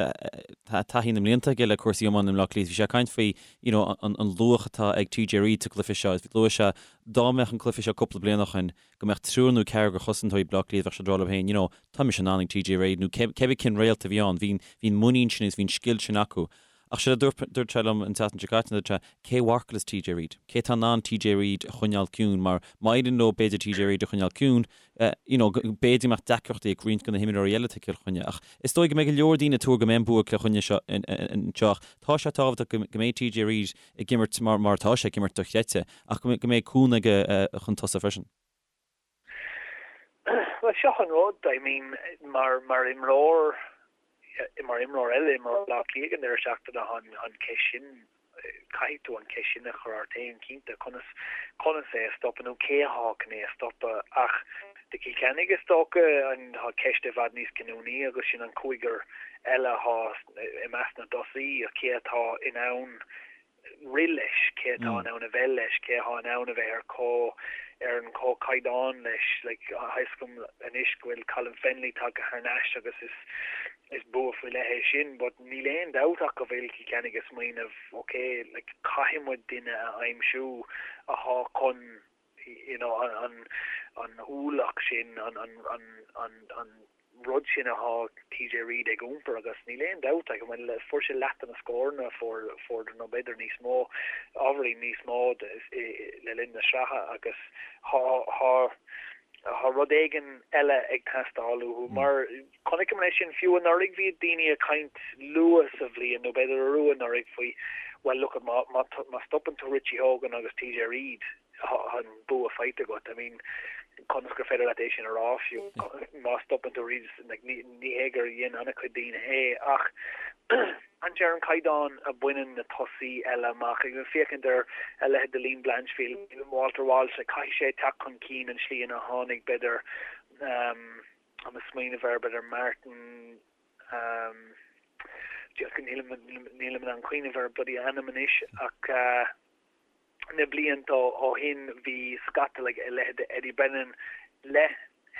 tá taithí na mblianta aige le cúrsaí iomána i mBleá Cliath, bhí sé ag caint faoi you know an luach atá ag TJ Reid sa gcluiche seo. Luaigh sé dá mbeadh an cluiche seo cúpla bliain ó shin go mbeadh triúr nó ceathrar de chosantóirí Bhleá Cliath, bheadh siad ag rá leo féin, you know, tá mise in ann ag TJ Reid nó cébí cén réalt a bhí ann, bhí an muinín sin agus bhí an scil sin acu. Ach séard a dúirt, dúirt sé liom an tseachtain seo caite, dúirt sé, cé a mharcálfas TJ Reid? Cé atá in ann TJ Reid a choinneáil ciúin? Mar má éiríonn leo b'fhéidir TJ Reid a choinneáil ciúin, you know, b'fhéidir go mbeadh deacrachtaí ag roinnt de na himreoirí eile atá ag Cill Chainnigh. Ach is dóigh go mbeidh go leor daoine ag tuar go mbeidh an bua ag Cill Chainnigh seo anseo ach tá sé tábhachtach go mbeidh TJ Reid ag imirt mar mar atá sé ag imirt dochreidte ach go mbeidh cúnamh aige chun tosaigh freisin. Bhuel, seo an rud, I mean, mar mar imreoir, mar imreoir eile, imreoir Bhaile Átha Cliath ag an deireadh seachtaine, tá an an cheist sin, caithfidh tú an cheist sin a chur ort féin, cinnte, conas, conas é a stopadh nó cé athá chun é a stopadh ach do Chill Chainnigh is dócha an, tá ceist i bhfad níos cinniúnaí agus sin an cúigear eile athá i measc na dtosaí, cé atá in ann rith leis, cé atá in ann a bheith leis, cé atá in ann a bheith ar comh, ar an comhchaighdeán leis. Like, tá a fhios agam anois go bhfuil Colin Fennelly tagtha thar n-ais agus is, is bua faoi leith é sin, but níl aon dabht ach go bhfuil Cill Chainnigh ag smaoineamh, ok, like, caithfidh muid duine a aimsiú athá chun, you know, an, an ualach sin, an, an, an, an, an, rud sin athá TJ Reid ag iompar agus níl aon dabht like, bhuel, fuair sé leath de na scóranna a fuair, fuair nó b'fhéidir níos mó, ábhairín níos mó le linn na sraithe agus thá, thá, thá rud éigin eile ag teastáil uathu mar chonaiceamar é sin fiú anuraidh bhí daoine ag caint luath sa bhliain nó b'fhéidir arú anuraidh faoi well look má, má, má stopann tú Richie Hogan agus TJ Reid Tá an bua faighte agat. I mean, conas gur féidir leat é sin a rá fiú má stopann tú Reid, like, ní, ní hé gur dhein an-chuid daoine é, ach féachaint ar an caighdeán a bhaineann na tosaí eile amach, ag féachaint ar a leithéid de Liam Blanchfield, Walter Walsh, like, caithfidh sé teacht chun cinn an slí ina tháinig, b'fhéidir, um, tá mé ag smaoineamh ar, b'fhéidir Martin, um, Nílim nílim in ann cuimhneamh ar a bloody ainm anois ach na blianta ó shin bhí scata like a leithéid de Eddie Brennan le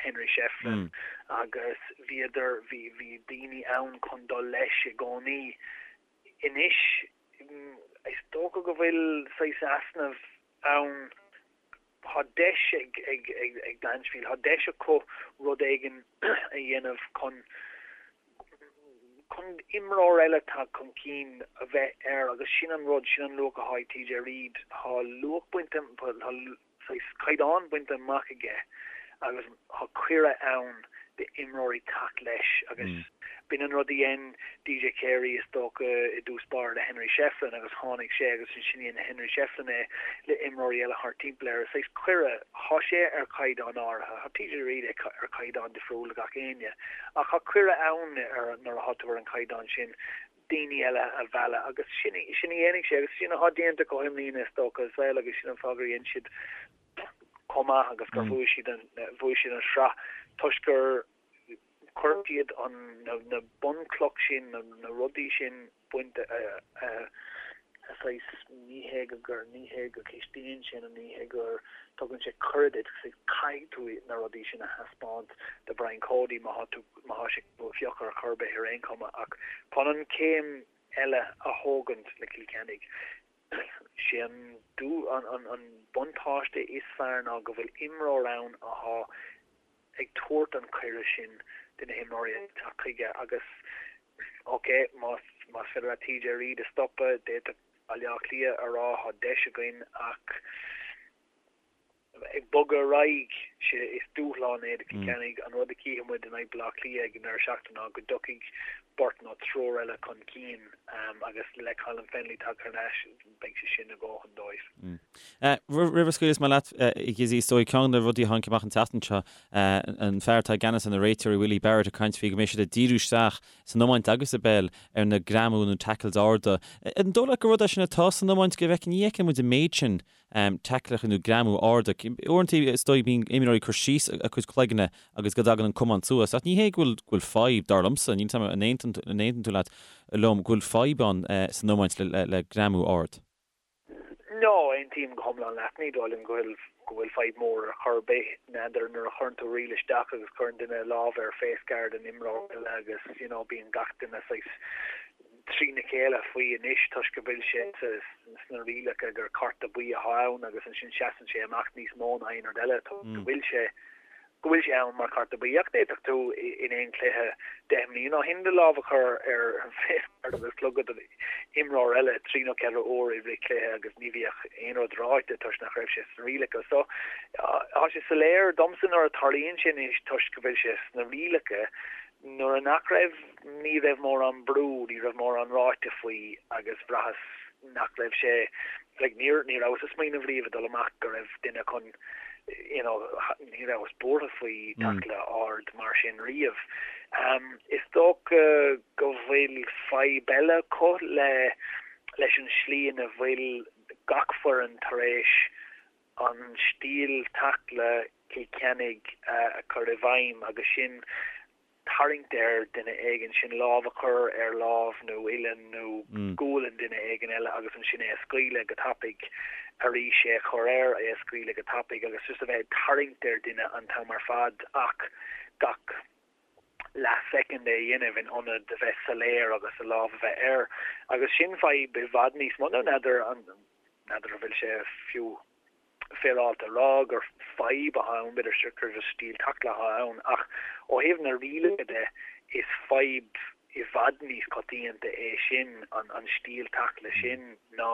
Henry Shefflin agus bhíodar bhí bhí daoine ann chun dul leis i gcónaí. Anois is dócha go bhfuil saghas easnamh ann Tá deis ag Blanchfield, tá deis acu rud éigin a dhéanamh chun chun imreoir eile teacht chun cinn a bheith air agus sin an rud, sin an luach atá ag TJ Reid. Tá luach bainte, tá saghas caighdeán bainte amach aige agus tá cuireadh ann d'imreoirí teacht leis agus b'in an rud a dhein DJ Carey is dócha i dtús báire le Henry Shefflin agus tháinig sé agus ansin dhein Henry Shefflin é le imreoirí eile thart timpeall air. Is saghas cuireadh, tá sé ar chaighdeán áirithe, tá TJ Reid ar chaighdeán difriúil le gach éinne ach tá cuireadh ann ar nuair atá tú ar an chaighdeán sin daoine eile a mhealladh agus sin sin a dhéanfaidh sé agus sin atá déanta acu i mbliana is dócha as well agus sin an fáth gur dhein siad chomh maith agus gur bhuaigh siad an bhuaigh siad an sraith toisc gur chuir siad an na bunchloch sin na na rudaí sin bainte a saghas ní hé go gur ní hé go cistíonn sé nó ní hé gur tugann sé cuireadh duit caithfidh tú na rudaí sin a thaispeáint do Brian Cody má tá tú má tá sé tú a phiocadh ar chor ar bith ar aon chuma ach chun an chéim eile a thógaint le Cill Chainnigh Sé an buntáiste is fearr ná go bhfuil imreoir ann athá ag tabhairt an cuireadh sin do na himreoirí eile teacht chuige agus ok más más féidir leat TJ Reid a stopadh d'fhéadfadh Baile Átha Cliath a rá thá deis againn ach ag bogadh ar aghaidh, sé is dúshlán é do Chill Chainnigh. An rud a chífidh muid in aghaidh Baile Átha Cliath ag an deireadh seachtaine ná go dtiocfaidh beirt nó triúr eile chun cinn agus le Colin Fennelly tagtha thar n-ais beidh sé sin a dhóthain dóibh. Roimh a scaoileas mé leat, a Ghizzy, is dóigh ceann de na rudaí a tháinig amach an tseachtain seo, an fear atá i gceannas ar na réiteoirí, Willie Barrett, ag caint faoi go mbeidh siad ag díriú isteach san iomáint agus i bpeil ar na greamú nó tackles arda. An dóigh leat gur rud é sin atá san iomáint go bhfeiceann, ní fheiceann muid an méid sin taicleacha nó greamú arda. Uaireanta is dóigh bíonn imreoirí ag cur síos a gcuid cloigne agus go dtagann an camán suas. Ach ní hé go bhfuil go bhfuil fadhb, dar liomsa, níl 'fhios a'm an aontaíonn tú leat, liom, go bhfuil fadhb ann san iomáint le le greamú ard. No, aontaím go hiomlán leat. Ní dóigh liom go bhfuil go bhfuil fadhb mór ar chor ar bith. N'fheadar nuair a chuireann tú riail isteach agus cuireann duine lámh ar face guard an imreora eile agus you know bíonn gach duine saghas trína chéile faoi anois toisc go bhfuil sé sna rialacha gur cárta buí atá ann agus ansin seasann sé amach níos mó ná aon rud eile toisc go bhfuil sé go bhfuil sé ann mar chárta buí. Ach d'fhéadfadh tú in aon chluiche 10 mbliana ó shin do lámh a chur ar face guard agus clogad imreoir eile trí nó ceithre uair i rith cluiche agus ní bhíodh aon rud ráite toisc nach raibh sé sna rialacha. So tá sé soiléir domsa nuair a tarlaíonn sé anois toisc go bhfuil sé sna rialacha Nuair a nach raibh, ní raibh mórán brú, ní raibh mórán ráite faoi agus bhraitheas nach raibh sé, like níor, ní rabhas ag smaoineamh riamh ag dul amach go raibh duine chun, you know, ní rabhas buartha faoi tackle ard mar sin riamh. Is dócha go bhfuil fadhb eile acu le, leis an slí ina bhfuil gach foireann tar éis an stíl taicle Cill Chainnigh a chur i bhfeidhm agus sin tarraingt ar duine éigin, sin lámh a chur ar lámh nó uillinn nó gualainn duine éigin eile agus ansin é a scaoileadh go tapaidh, arís é a chur air, é a scaoileadh go tapaidh agus just a bheith ag tarraingt ar duine an t-am ar fad ach gach leathshoicind é a dhéanamh in ionad a bheith soiléir agus a lámh a bheith air agus sin fadhb i bhfad níos mó. Nó n'fheadar an n'fheadar an bhfuil sé fiú féaráilte a rá gur fadhb atá ann, b'fhéidir gur just stíl taicle atá ann ach ó thaobh na rialacha de is fadhb i bhfad níos coitianta é sin, an stíl taicle sin ná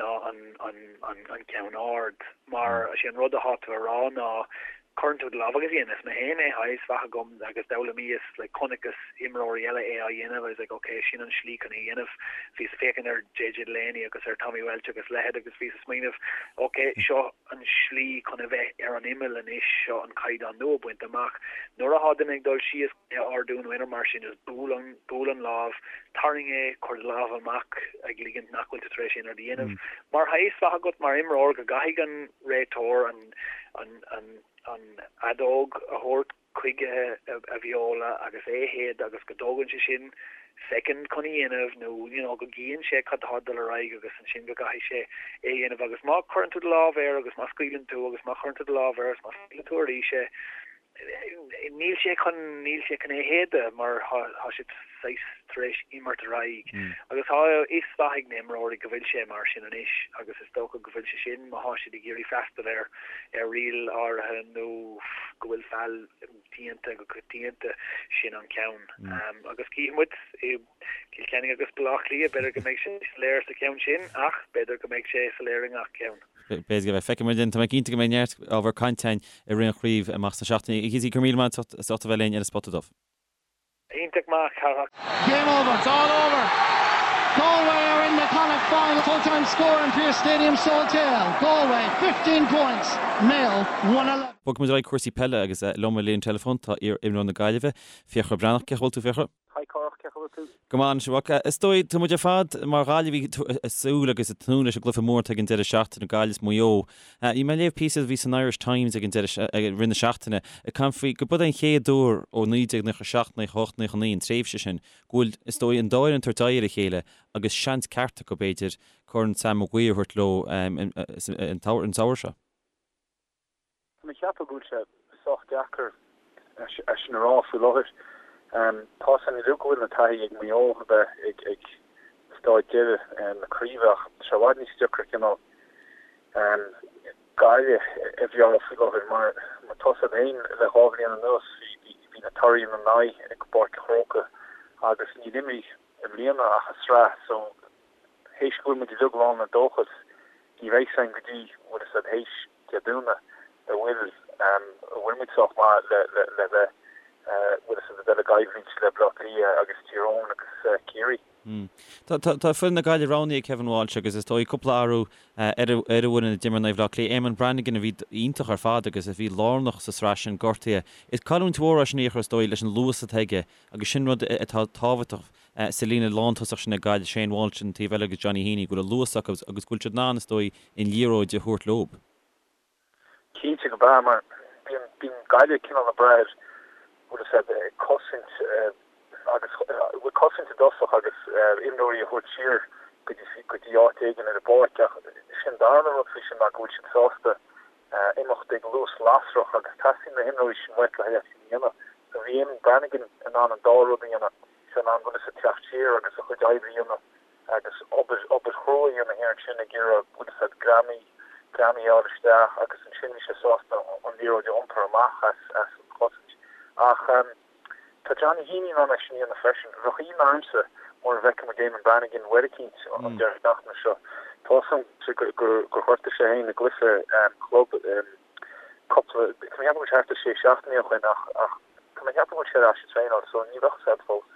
ná an ceann ard. Mar is é an rud atá tú a rá ná cuireann tú do lámh agus dhéanas mé féin é, tá fhios mhaith agam agus d'fhoghlaimíos, like chonaiceas imreoirí eile é á dhéanamh, I was like ok sin an slí chun é a dhéanamh. Bhíos ag féachaint ar JJ Delaney agus ar Tommy Walsh agus leithéid agus bhíos ag smaoineamh ok seo an slí chun a bheith ar an imeall anois, seo an caighdeán nua bainte amach. Nuair atá duine ag dul síos, é a ardú nó aon rud mar sin, just buail an, buail an lámh, tarraing é, cuir do lámh amach ag ligint nach bhfuil tú tar éis aon rud a dhéanamh. Mar tá fhios mhaith agat mar imreoir go gcaithfidh an réiteoir an, an, an, an fheadóg a thabhairt chuige a bheola agus é a shéideadh agus go dtógann sé sin. soicind chun a dhéanamh nó you know go gcíonn sé cad tá ag dul ar aghaidh agus ansin go gcaithfidh sé é a dhéanamh agus má chuireann tú do lámh air agus má scaoileann tú agus má chuireann tú do lámh air agus má scaoileann tú arís é níl sé chun níl sé chun é a shéideadh mar tá sé saghas tar éis imirt ar aghaidh agus tá a fhios mhaith ag na imreoirí go bhfuil sé mar sin anois agus is dócha go bhfuil sé sin má thá siad ag iarraidh freastal ar ar riail áirithe nó go bhfuil feall déanta go coitianta, sin an ceann. Agus cífidh muid i gCill Chainnigh agus Baile Átha Cliath, b'fhéidir go mbeidh sé soiléir sa cheann sin ach b'fhéidir go mbeidh sé soiléir i ngach ceann. B'fhéidir go mbeidh. Feicfidh muid. Tá mé cinnte go mbeidh neart ábhar cainte againn i rith an chraobh amach sna seachtainí. A Cíosaí, go raibh míle maith agat as ucht a bheith linn ar an Spota Dubh. Iontach maith, Cárthach. Game over. It's all over. Galway are in the Connacht final. Full time score in Pearse Stadium Salthill. Galway 15 points. Mayo 1-11. Bogfaidh muid ar aghaidh cúrsaí peile agus liom ar an líne teileafóin tá iar-imreoir na Gaillimhe, Fiachra Breathnach. Cén chaoi a bhfuil tú, Fiachra? Hi Cárthach, cén chaoi a bhfuil tú? Go maith anois, a mhac. Is dóigh, tá muid ar fad mar Ghaillimhigh ag súil agus ag tnúth leis an gcluiche mór atá ag an deireadh seachtaine, Gaillimh is Maigh Eo. Bhí mé ag léamh píosa a bhí san Irish Times ag an deireadh, i rith na seachtaine, ag caint faoi go b'é an chéad uair ó 1997, 98, 99, an tréimhse sin, go bhfuil, is dóigh, an dá fhoireann ag tabhairt aghaidh ar a chéile agus seans ceart acu, b'fhéidir, Corn Sam Maguire a thabhairt leo an samhradh seo. Tá mé ag ceapadh go bhfuil sé sách deacair é sin a rá faoi láthair. Tá a fhios againn uilig go bhfuil an taithí ag Maigh Eo a bheith ag staid deiridh na craoibhe ach tá sé i bhfad níos deacra cineál Gaillimh a mheá faoi láthair mar tá a fhios agat féin le dhá bhliain anuas bhí na torthaí ina n-aghaidh ag Páirc an Chrócaigh agus níor imrigh i mbliana ach i sraith so théis go bhfuil muid uilig lán le dóchas ní bheidh a fhios againn go dtí bhfuil a fhios agat théis Dé Domhnaigh a bhfuil an bhfuil muid sách maith le le le bheith bhfuil a fhios agat a dul i gcoimhlint le Baile Átha Cliath agus Tír Eoghain agus Ciarraí. Tá tá foireann na Gaillimhe roghnaithe ag Kevin Walsh agus is dóigh cúpla athrú ar ar an bhfoireann a d'imir in aghaidh Bhaile Átha Cliath. Eamonn Brannigan a bhí iontach ar fad agus a bhí lárnach sa sraith sin gortaithe. Is cailliúint mhór é sin a Fhiachra is dóigh leis an luas atá aige agus sin rud atá tábhachtach sa líne lántosach sin ag Gaillimh, Shane Walsh an taobh eile agus Johnny Heaney, go bhfuil an luas acu agus go bhfuil siad in ann, is dóigh, an liathróid a thabhairt leo. Cinnte go b'ea, mar bíonn, bíonn Gaillimh cineál ag brath ar, bhfuil a fhios agat, ag cosaint agus, bhuel cosaint i dtosach agus imreoirí a thabhairt siar go dtí, go dtí áit éigin ar an bpáirc ach sin darna rud faoi sin ná go bhfuil siad sásta imeacht ag luas lasrach agus teastaíonn na himreoirí sin uait le haghaidh é sin a dhéanamh. So bhí Eamonn Brannigan in ann an dá rud a dhéanamh, sé in ann bhfuil a fhios agat teacht siar agus a chuid oibre a dhéanamh agus obair, obair chrua a dhéanamh thiar ansin ag iarraidh bhfuil a fhios agat greamaí, greamaí a fháil isteach agus ansin bhí sé sásta an liathróid a iompar amach as, as an chosaint. Ach tá Johnny Heaney in ann é sin a dhéanamh freisin. Bheadh ionadh ormsa mura bhfeicfidh muid Eamonn Brannigan uair eicínt an deireadh seachtaine seo. Tá a fhios agam gur, gur ghortaigh sé féin i gcluiche club cúpla, tá mé ag ceapadh go bhfuil sé thart ar sé seachtainí ó shin ach, ach tá mé ag ceapadh go bhfuil sé ar ais ag traenáil so ní bheadh a fhios agat fós.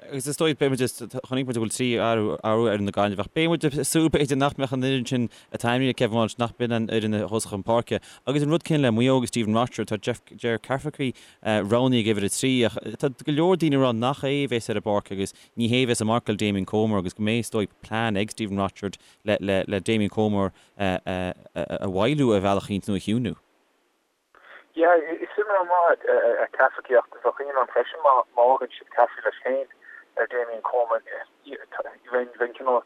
Agus is dóigh, beidh muid, chonaic muid go bhfuil 3 athrú ar fhoireann na Gaillimhe ach beidh muid ag súil b'fhéidir nach mbeadh an fhoireann sin atá ainmnithe ag Kevin Walsh, nach b'in an fhoireann a thosódh chun páirce. Agus an rud céanna le Maigh Eo agus Stephen Rochford, tá Jeff, Ger Cafferkey roghnaithe ag uimhir 3 ach tá go leor daoine ag rá nach é a bheas ar an bpáirc agus ní hé a bheas ag marcáil Damien Comer agus go mbeidh is dóigh plean ag Stephen Rochford le, le, le Damien Comer a, a, a mhoilliú ar bhealach eicínt nó a chiúnú. Yeah, is imreoir maith é Cafferkey ach bheadh ionadh orm freisin má fhágann siad Cafferkey leis féin ar Damien Comer. Bheinn cineál,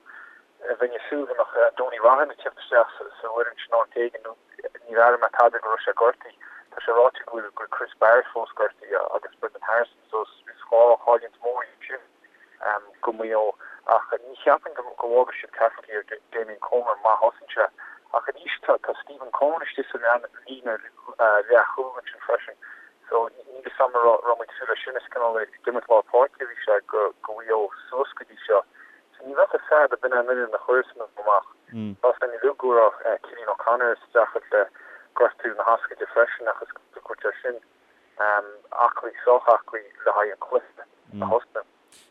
bheinn ag súil go mbeadh Donie Roughan ag tíocht isteach sa bhfoireann sin áit éigin nó níor airigh mé tada go raibh sé gortaithe. Tá sé ráite go bhfuil Chris Barrett fós gortaithe agus Brendan Harrison so is dhá chailliúint mhór iad sin. go Maigh Eo ach ní cheapaim go bhfágfaidh siad Cafferkey ar Damien Comer má thosaíonn sé. Ach arís tá Stephen Coen istigh sa líne leathchúil ansin freisin so níl fhios a'm an raibh muid ag súil leis sin, is cineál ag imirt lár páirce a bhí sé go Mhaigh Eo suas go dtí seo. So ní bheadh fhios a'd ab in é an fhoireann a chuirfeas Maigh Eo amach. Tá fhios againn uilig go raibh Cillian O'Connor ag streachailt le gortú na hioscaide freisin ach is go gcuirtear sin aclaí, sách aclaí le haghaidh an cluiche a thosnú.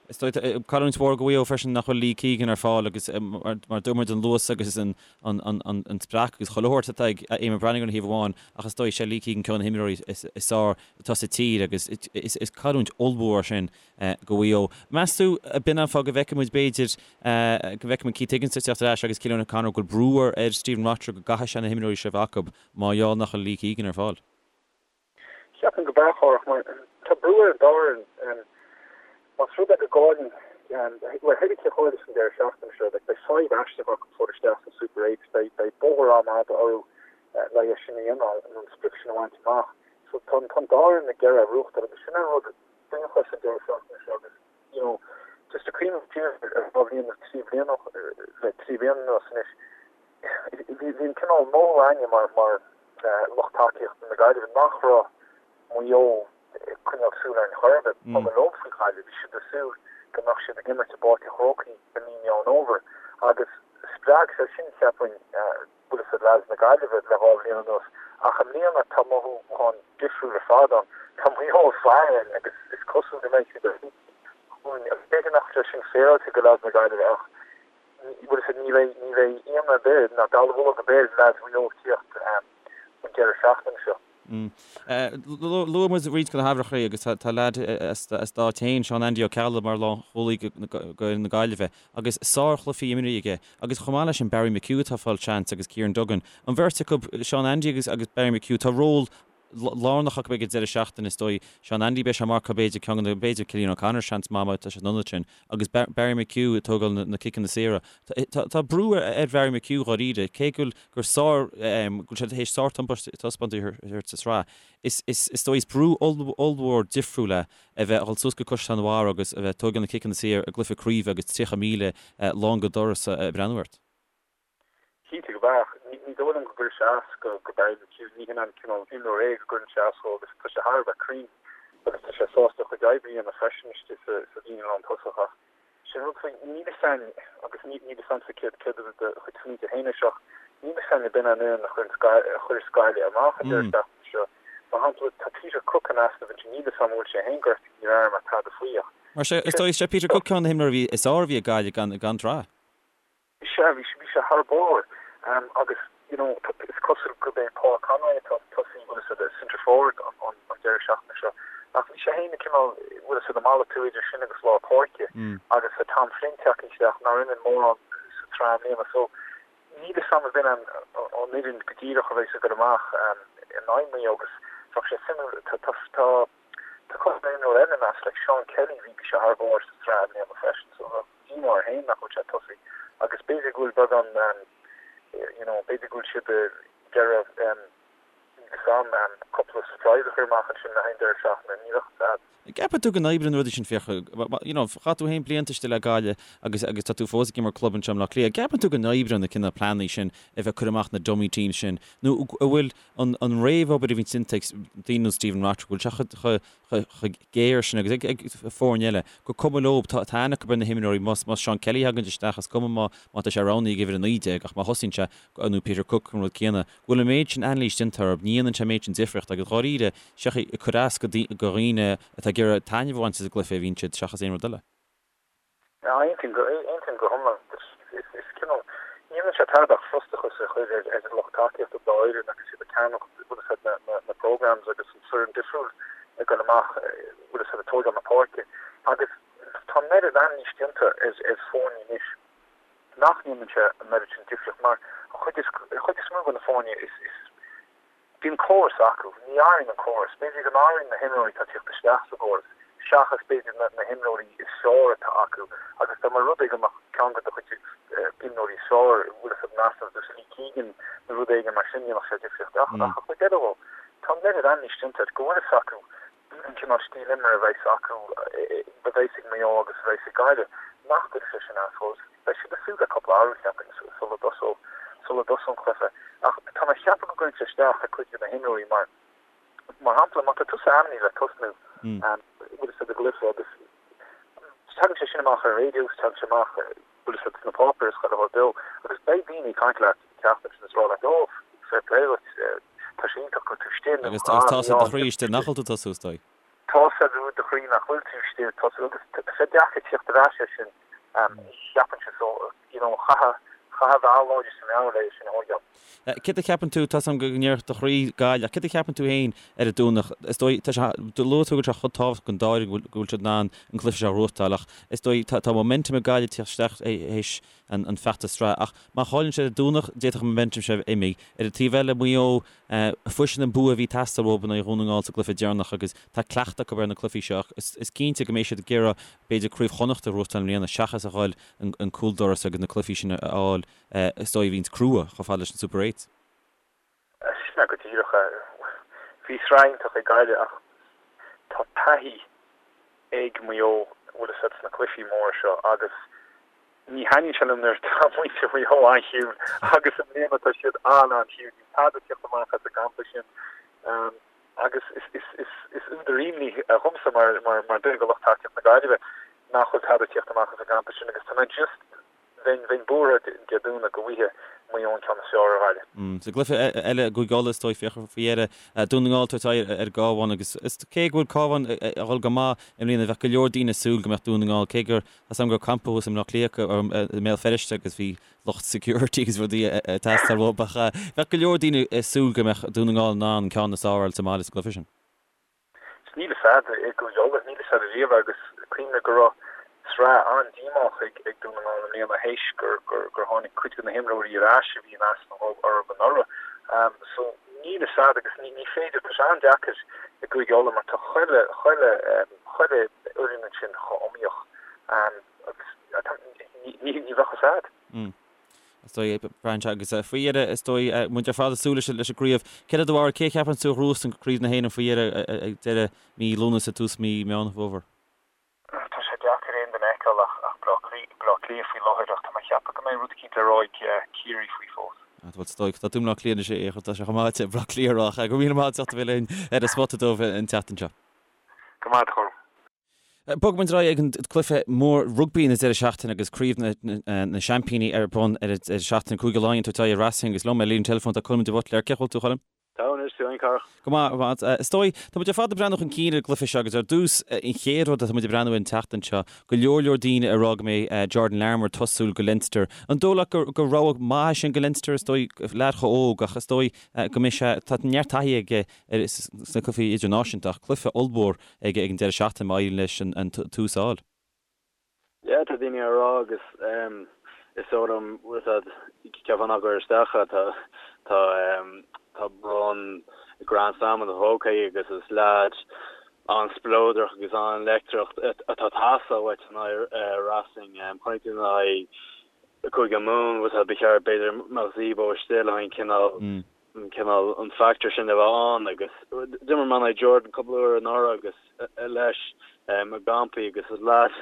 Is dóigh, cailliúint mhór go Mhaigh Eo freisin nach bhfuil Lee Keegan ar fáil agus mar dúirt muid an luas agus an spreacadh agus chuile shórt atá ag Eamonn Brannigan ar thaobh amháin ach is dóigh sé Lee Keegan ceann de na himreoirí is fearr atá sa tír agus is cailliúint ollmhór é sin go Mhaigh Eo. Meas tú ab in an fáth go bhfeicfidh muid b'fhéidir go bhfeicfidh muid Keith Higgins ag teacht ar ais agus Cillian O'Connor go bhfuil brú ar Stephen Rochford go gcaithfidh sé na himreoirí seo a bheith acu mar gheall nach bhfuil Lee Keegan ar fáil? Cheapfainn go b'ea, a Chárthach, mar tá brú ar an dá fhoireann. Más rud é go gcailleann Bhuel, thébí cé a chaillfeas an deireadh seachtaine seo, beidh fadhb aisteach acu fáil isteach sa Super 8, beidh bóthar an-fhada orthu le é sin a dhéanamh, nó an sprioc sin a bhaint amach. So tá an dá fhoireann ag iarraidh a ghnóthachtáil agus sin an rud iontach leis an deireadh seachtaine seo agus, you know, just ag cuimhneamh siar ar dhá bhliain nó trí bliana, le trí bliana anuas anois, bhí an cineál mothú againne mar mar lucht tacaíochta na Gaillimhe nach raibh Maigh Eo ag coinneáil súil orainn chor ar bith. Ba chuma leo faoi Ghaillimh. Bhí siad ag súil go mbeadh siad ag imirt i bPáirc an Chrócaigh i mí Meán Fhómhair agus spreag sé sin, cheapfainn, bhfuil fhios a'd, leaids na Gaillimhe le dhá bhliain anuas. Ach i mbliana tá mothúchán difriúil ar fad ann. Tá Maigh Eo ag faire orainn agus is cosúil go mbeidh siad ar thús chugainn. B'fhéidir nach bhfuil sé sin féaráilte do leaids na Gaillimhe ach bhfuil fhios a'd, ní bheidh, ní bheidh ionadh ar bith ná dallamullóg ar bith ar leaids Mhaigh Eo ag tíocht an deireadh seachtaine seo. Luaigh muid roinnt de na haimhreacha agus tá leaid as d'áit féin, Seán Andy Ó Ceallaigh, mar lánchúlaí d'fhoireann na Gaillimhe agus sárchluichí imeartha aige agus chomh maith leis sin Barry McHugh atá ag fáil seans agus Kieran Duggan. An bheirt acu, Seán Andy agus Barry McHugh, tá ról lárnach acu ag an deireadh seachtaine is dóigh. Seán Andy beidh sé ag marcáil b'fhéidir ceann de na, b'fhéidir Cillian O'Connor seans maith má tá sé san ionad sin agus Barry McHugh ag tógáil na ciceanna saora. Tá brú ar Bharry McHugh dháiríre, cé go bhfuil gur sár, go bhfuil sé théis sárthaispeántas a thabhairt sa tsraith. Is, is, is dóigh, is brú ollmhór difriúil é a bheith a dhul suas go Caisleán an Bharraigh agus a bheith ag tógáil na ciceanna saor i gcluiche craoibhe agus 30,000 lán go doras ag breathnú ort. Cinnte go mbeadh. Ní dóigh liom go gcuirfeadh sé as go Barry McHugh. Ní hin an cineál imreoir é go gcuireann sé as dhó agus tá sé thar a bheith cruinn agus tá sé sásta a chuid oibre a dhéanamh freisin istigh sa líne lántosach ach sin rud faoi, níl fhios a'inn agus níl fhios a'msa céard céard iad do chuid smaointe féin air seo ach níl fhios a'inn ab in an fhoireann a chuireann a chuirfeas Gaillimh amach an deireadh seachtaine seo. Mar shampla tá Peter Cooke in easnamh ansin, níl fhios a'm an bhfuil sé féin gortaithe, níor airigh mé tada faoi ach Mar sé, is dóigh, is é Peter Cooke ceann de na himreoirí a bhí is fearr a bhí ag Gaillimh gan gan tráth. Sea, bhí sé, bhí sé thar barr. Agus, you know, is cosúil gurb é Paul Conroy atá ag tosaí, bhfuil fhios a'd, centre forward an, an, an deireadh seachtaine seo. Ach bhí sé féin ag cineál, bhfuil fhios a'd, ag malartú idir sin agus lár páirce. Agus tá Tom Flynn tagtha isteach, nár imir mórán sa tsraith i mbliana. So, níl fhios a'm ab in an, an fhoireann go díreach a bheas ag dul amach in aghaidh Mhaigh Eo agus bheadh sé suimiúil, tá, tá, tá, Tá cúpla imreoir eile in easnamh, like Seán Kelly, bhí sé thar barr sa tsraith i mbliana freisin, so bheadh díomá air féin nach bhfuil sé ag tosaí. Agus b'fhéidir go bhfuil beagán, you know, b'fhéidir go bhfuil siad ag iarraidh, níl fhios a'm, cúpla surprise a chur amach ansin le haghaidh an deireadh seachtaine, ní bheadh fhios a'd. An gceapann tú go n-oibríonn na rudaí sin Fiachra, you know, chaith tú féin blianta istigh le Gaillimh agus agus tá tú fós ag imirt club anseo i mBleá Cliath, an gceapann tú go n-oibríonn na cineál pleananna sin a bheith ag cur amach na dummy teams sin nó an bhfuil an réamhobair a bhíonn déanta ag daoine ar nós Stephen Rotherham, go bhfuil sé chomh géar sin agus ag foirne eile, gur cuma leo, tá aithne acu ar na himreoirí, más Seán Kelly a thagann isteach, is cuma má tá sé roghnaithe ag uimhir 19 ach má thosaíonn sé, nó Peter Cooke an rud céanna, go bhfuil an méid sin anailís déanta orthu, ní dhéanann sé an méid sin difríochta agus dháiríre, seachas ag cur as do dhaoine atá ag iarraidh taitneamh a bhaint as an gcluiche a bhíonn siad seachas aon rud eile. Aontaím go, aontaím go hiomlán. Is cineál, ní dhéanann sé tada ach frustrachas a chur ar an lucht tacaíochta dá fhoireann agus iad ag ceannach, bhfuil fhios a'd, na, na programmes agus an foireann difriúil ag dul amach, bhfuil fhios a'd, ag tógáil na páirce. Agus tá an oiread anailís déanta ar, ar foirne anois nach ndéanann sé an oiread sin difríocht mar an chuid is, an chuid is mó de na foirne is, is, Bíonn córas acu. Ní athraíonn an córas. B'fhéidir go n-athraíonn na himreoirí atá ag tíocht isteach sa gcóras, seachas b'fhéidir na himreoirí is fearr atá acu. Agus dá mba rud é go mbeadh ceann de do chuid imreoirí is fearr, bhfuil fhios a'd, in easnamh, ar nós Lee Keegan nó rud éigin mar sin, dhéanfadh sé difríocht. Ach an chuid eile dhó, tá an oiread anailís déanta air go bhfuil fhios acu an cineál stíl imeartha a bheas acu, a bheas ag Maigh Eo agus a bheas ag Gaillimh, nach gcuirfidh sé sin as dóibh. Beidh siad ag súil le cúpla athrú, cheapfainn, sula dtosóidh sula dtosóidh an cluiche. Ach tá mé ag ceapadh go gcuireann sé isteach ar chuid de na himreoirí mar, mar shampla, má tá tusa ainmnithe le tosnú, bhfuil fhios a'd, i gcluiche agus tagann sé sin amach ar an raidió, tagann sé amach, bhfuil fhios a'd, sna páipéir is chuile shórt beo agus beidh daoine ag caint leat an tseachtain sin is rá leat, oh, fair play duit, tá sé iontach go bhfuil tú istigh nó Agus tá a fhios i do chroí istigh nach bhfuil tú ag tosú, is dóigh. Tá a fhios i do chroí nach bhfuil tú istigh ag tosú agus tá sé deacair tíocht ar ais air sin, cheapfainnse, so, you know, chaithfeá, chaithfeá a bheith láidir sa meabhair le é sin a thóigeáil. Céard a cheapann tú, tá 's a'm go ndéarfadh do chroí Gaillimh, ach céard a cheapann tú féin ar an Domhnach? Is dóigh, tá sé, luaigh tú go bhfuil sé chomh tábhachtach don dá fhoireann go bhfuil siad in ann an cluiche seo a ghnóthachtáil ach is dóigh, tá, tá momentum ag Gaillimh ag tíocht isteach théis, an feachtas sraithe. Ach má chailleann siad ar an Domhnach, d'fhéadfadh an momentum sin a bheith imithe. Ar an taobh eile, Maigh Eo, fuair siad an bua a bhí ag teastáil uathu in aghaidh Dhún na nGall sa gcluiche deireanach agus tá cleachtadh acu ar na cluichí seo ach is cinnte go mbeidh siad ag iarraidh b'fhéidir Craobh Chonnacht a ghnóthachtáil i mbliana seachas a dhul an cúldoras agus na cluichí sin a fháil is dóigh a bhíonns crua chomh fada leis an Super Eight. Sin é go díreach é. Bhí sraith iontach ag Gaillimh ach tá taithí ag Maigh Eo, bhfuil fhios a'd, sna cluichí móra seo agus ní thaitníonn sé liom nuair atá muintir Mhaigh Eo an-chiúin agus i mbliana tá siad an-an-chiúin. Níl tada ag tíocht amach as an gcampa sin agus is údar imní dhomsa mar mar duine de lucht tacaíochta na Gaillimhe nach bhfuil tada ag tíocht amach as an gcampa sin agus tá mé just Bheinn buartha Dé Domhnaigh go bhfaighidh Maigh Eo an ceann is fearr ar Ghaillimh. Sa gcluiche eile i gCúige Uladh is dóigh féach faoi dheireadh, Dún na nGall ag tabhairt aghaidh ar an gCabhán agus cé go bhfuil Cabhán ag dul go maith i mbliana bheadh go leor daoine ag súil go mbeadh Dún na nGall, cé gur tá 's agam go raibh campa thuas i mBleá Cliath acu, i mBéal Feirste agus bhí lucht security agus rudaí ag teastáil uathu ach bheadh go leor daoine ag súil go mbeadh Dún na Ngall in ann an ceann is fearr a fháil sa mbaile sa gcluiche sin. Níl fhios a'd i gCúige Uladh, níl fhios a'd ariamh agus cuimhnigh go raibh sraith an-díomách ag Dún na nGall i mbliana théis gur tháinig cuid de na himreoirí ar ais a bhí in easnamh orthu anuraidh. So níl fhios a'd agus ní féidir, tá sé an-deacair i gCúige Uladh mar tá chuile, chuile, chuile fhoireann ansin chomh iomaíoch agus ní bheadh fhios a'd. Is dóigh, braitheann sé agus faoi dheireadh, is dóigh, muid ar fad ag súil leis an gcraobh. Céard é do bharúil, cé a cheapann tú a ghnóthós an Craobh na hÉireann faoi dheireadh ag deireadh mí Lúnasa, tús mí Meán Fómhair? Tá sé deacair aon duine a fheiceáil ach Baile Átha Cliath faoi láthair ach tá mé ag ceapadh go mbeidh rud eicínt le rá ag Ciarraí faoi fós. Bhuel, is dóigh, tá tú i mBleá Cliath anois, tá sé chomh maith Baile Átha Cliath a rá ach go raibh míle maith agat as ucht a bheith linn ar an Spota Dubh an tseachtain seo. Go maith, a Choilm. Bogfaidh muid ar aghaidh ag an gcluiche mór rugbaí na deireadh seachtaine agus Craobh na Seaimpíní ar bun ar an deireadh seachtaine. Cúige Laighean ag tabhairt aghaidh ar Racing agus liom ar líne teileafóin tá Colm de Buitléar. Cén chaoi a bhfuil tú, a Choilm? Tá anois, tú féin, Cárthach? Go maith, go maith. Is dóigh, tá muid ar fad ag breathnú chun cinn ar an gcluiche seo agus ar dtús, an chéad rud atá muid ag breathnú air an tseachtain seo, go leor leor daoine ag rá go mbeidh Jordan Larmour ag tosú go Leinster. An dóigh leat gur rogha maith é sin go Leinster? Is dóigh, leaid chomh óg ach is dóigh go mbeidh sé, tá neart taithí aige sna cluichí idirnáisiúnta ach cluiche ollmhór ag an deireadh seachtaine má éiríonn leis an tús a fháil. Yeah, tá daoine á rá agus is dóigh liom, bhfuil fhios a'd, cheapfá nach gcuirfeadh isteach é, tá, tá, tá bonn Grand Slam ina phóca aige agus is leaid an-spleodrach agus an-leictreach atá ag teastáil uait in aghaidh Racing. Chonaic tú in aghaidh Cúige Mumhan, bhfuil fhios a'd, ba cheart b'fhéidir mbeadh Zebo istigh le haghaidh an cineál, an cineál, an factor sin a bheith ann agus d'imir mé in aghaidh Jordan cúpla uair anuraidh agus leis i gcampaí agus is leaid,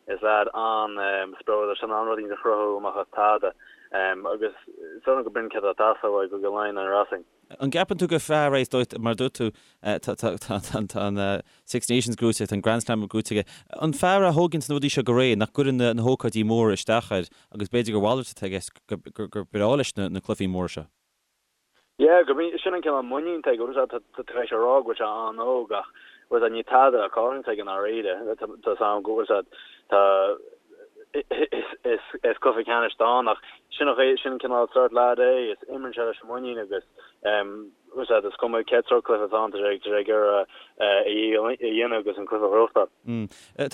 is leaid an-spleodrach, tá sé in ann rud éicint a chruthú amach as tada agus is dóigh liom go b'in céard atá ag teastáil uaidh Cúige Laighean in aghaidh Racing. An gceapann tú gur fear é, is dóigh, mar a dúirt tú, tá an Six Nations gnóite, tá an Grand Slam gnóite aige, an fear é a thóganns na rudaí seo go réidh, nach gcuireann na hócáidí móra isteach air agus b'fhéidir gur mhalairt atá i gceist, gur breá leis na cluichí móra seo? Yeah, gurb in, sin an cineál muinín atá aige, bhfuil fhios a'd, tá tar éis a rá go bhfuil sé an-óg ach, bhfuil fhios a'd, níl tada á chailliúint aige i ndáiríre, tá fhios a'm go bhfuil fhios a'd, tá, is cluiche ceannais atá ann ach sin an chaoi, sin an cineál sórt leaid é, is imríonn sé leis an muinín agus bhfuil fhios a'd, is cuma cén sórt cluiche atá ann, tá sé ag iarraidh a dhícheall a dhéanamh agus an cluiche a ghnóthachtáil.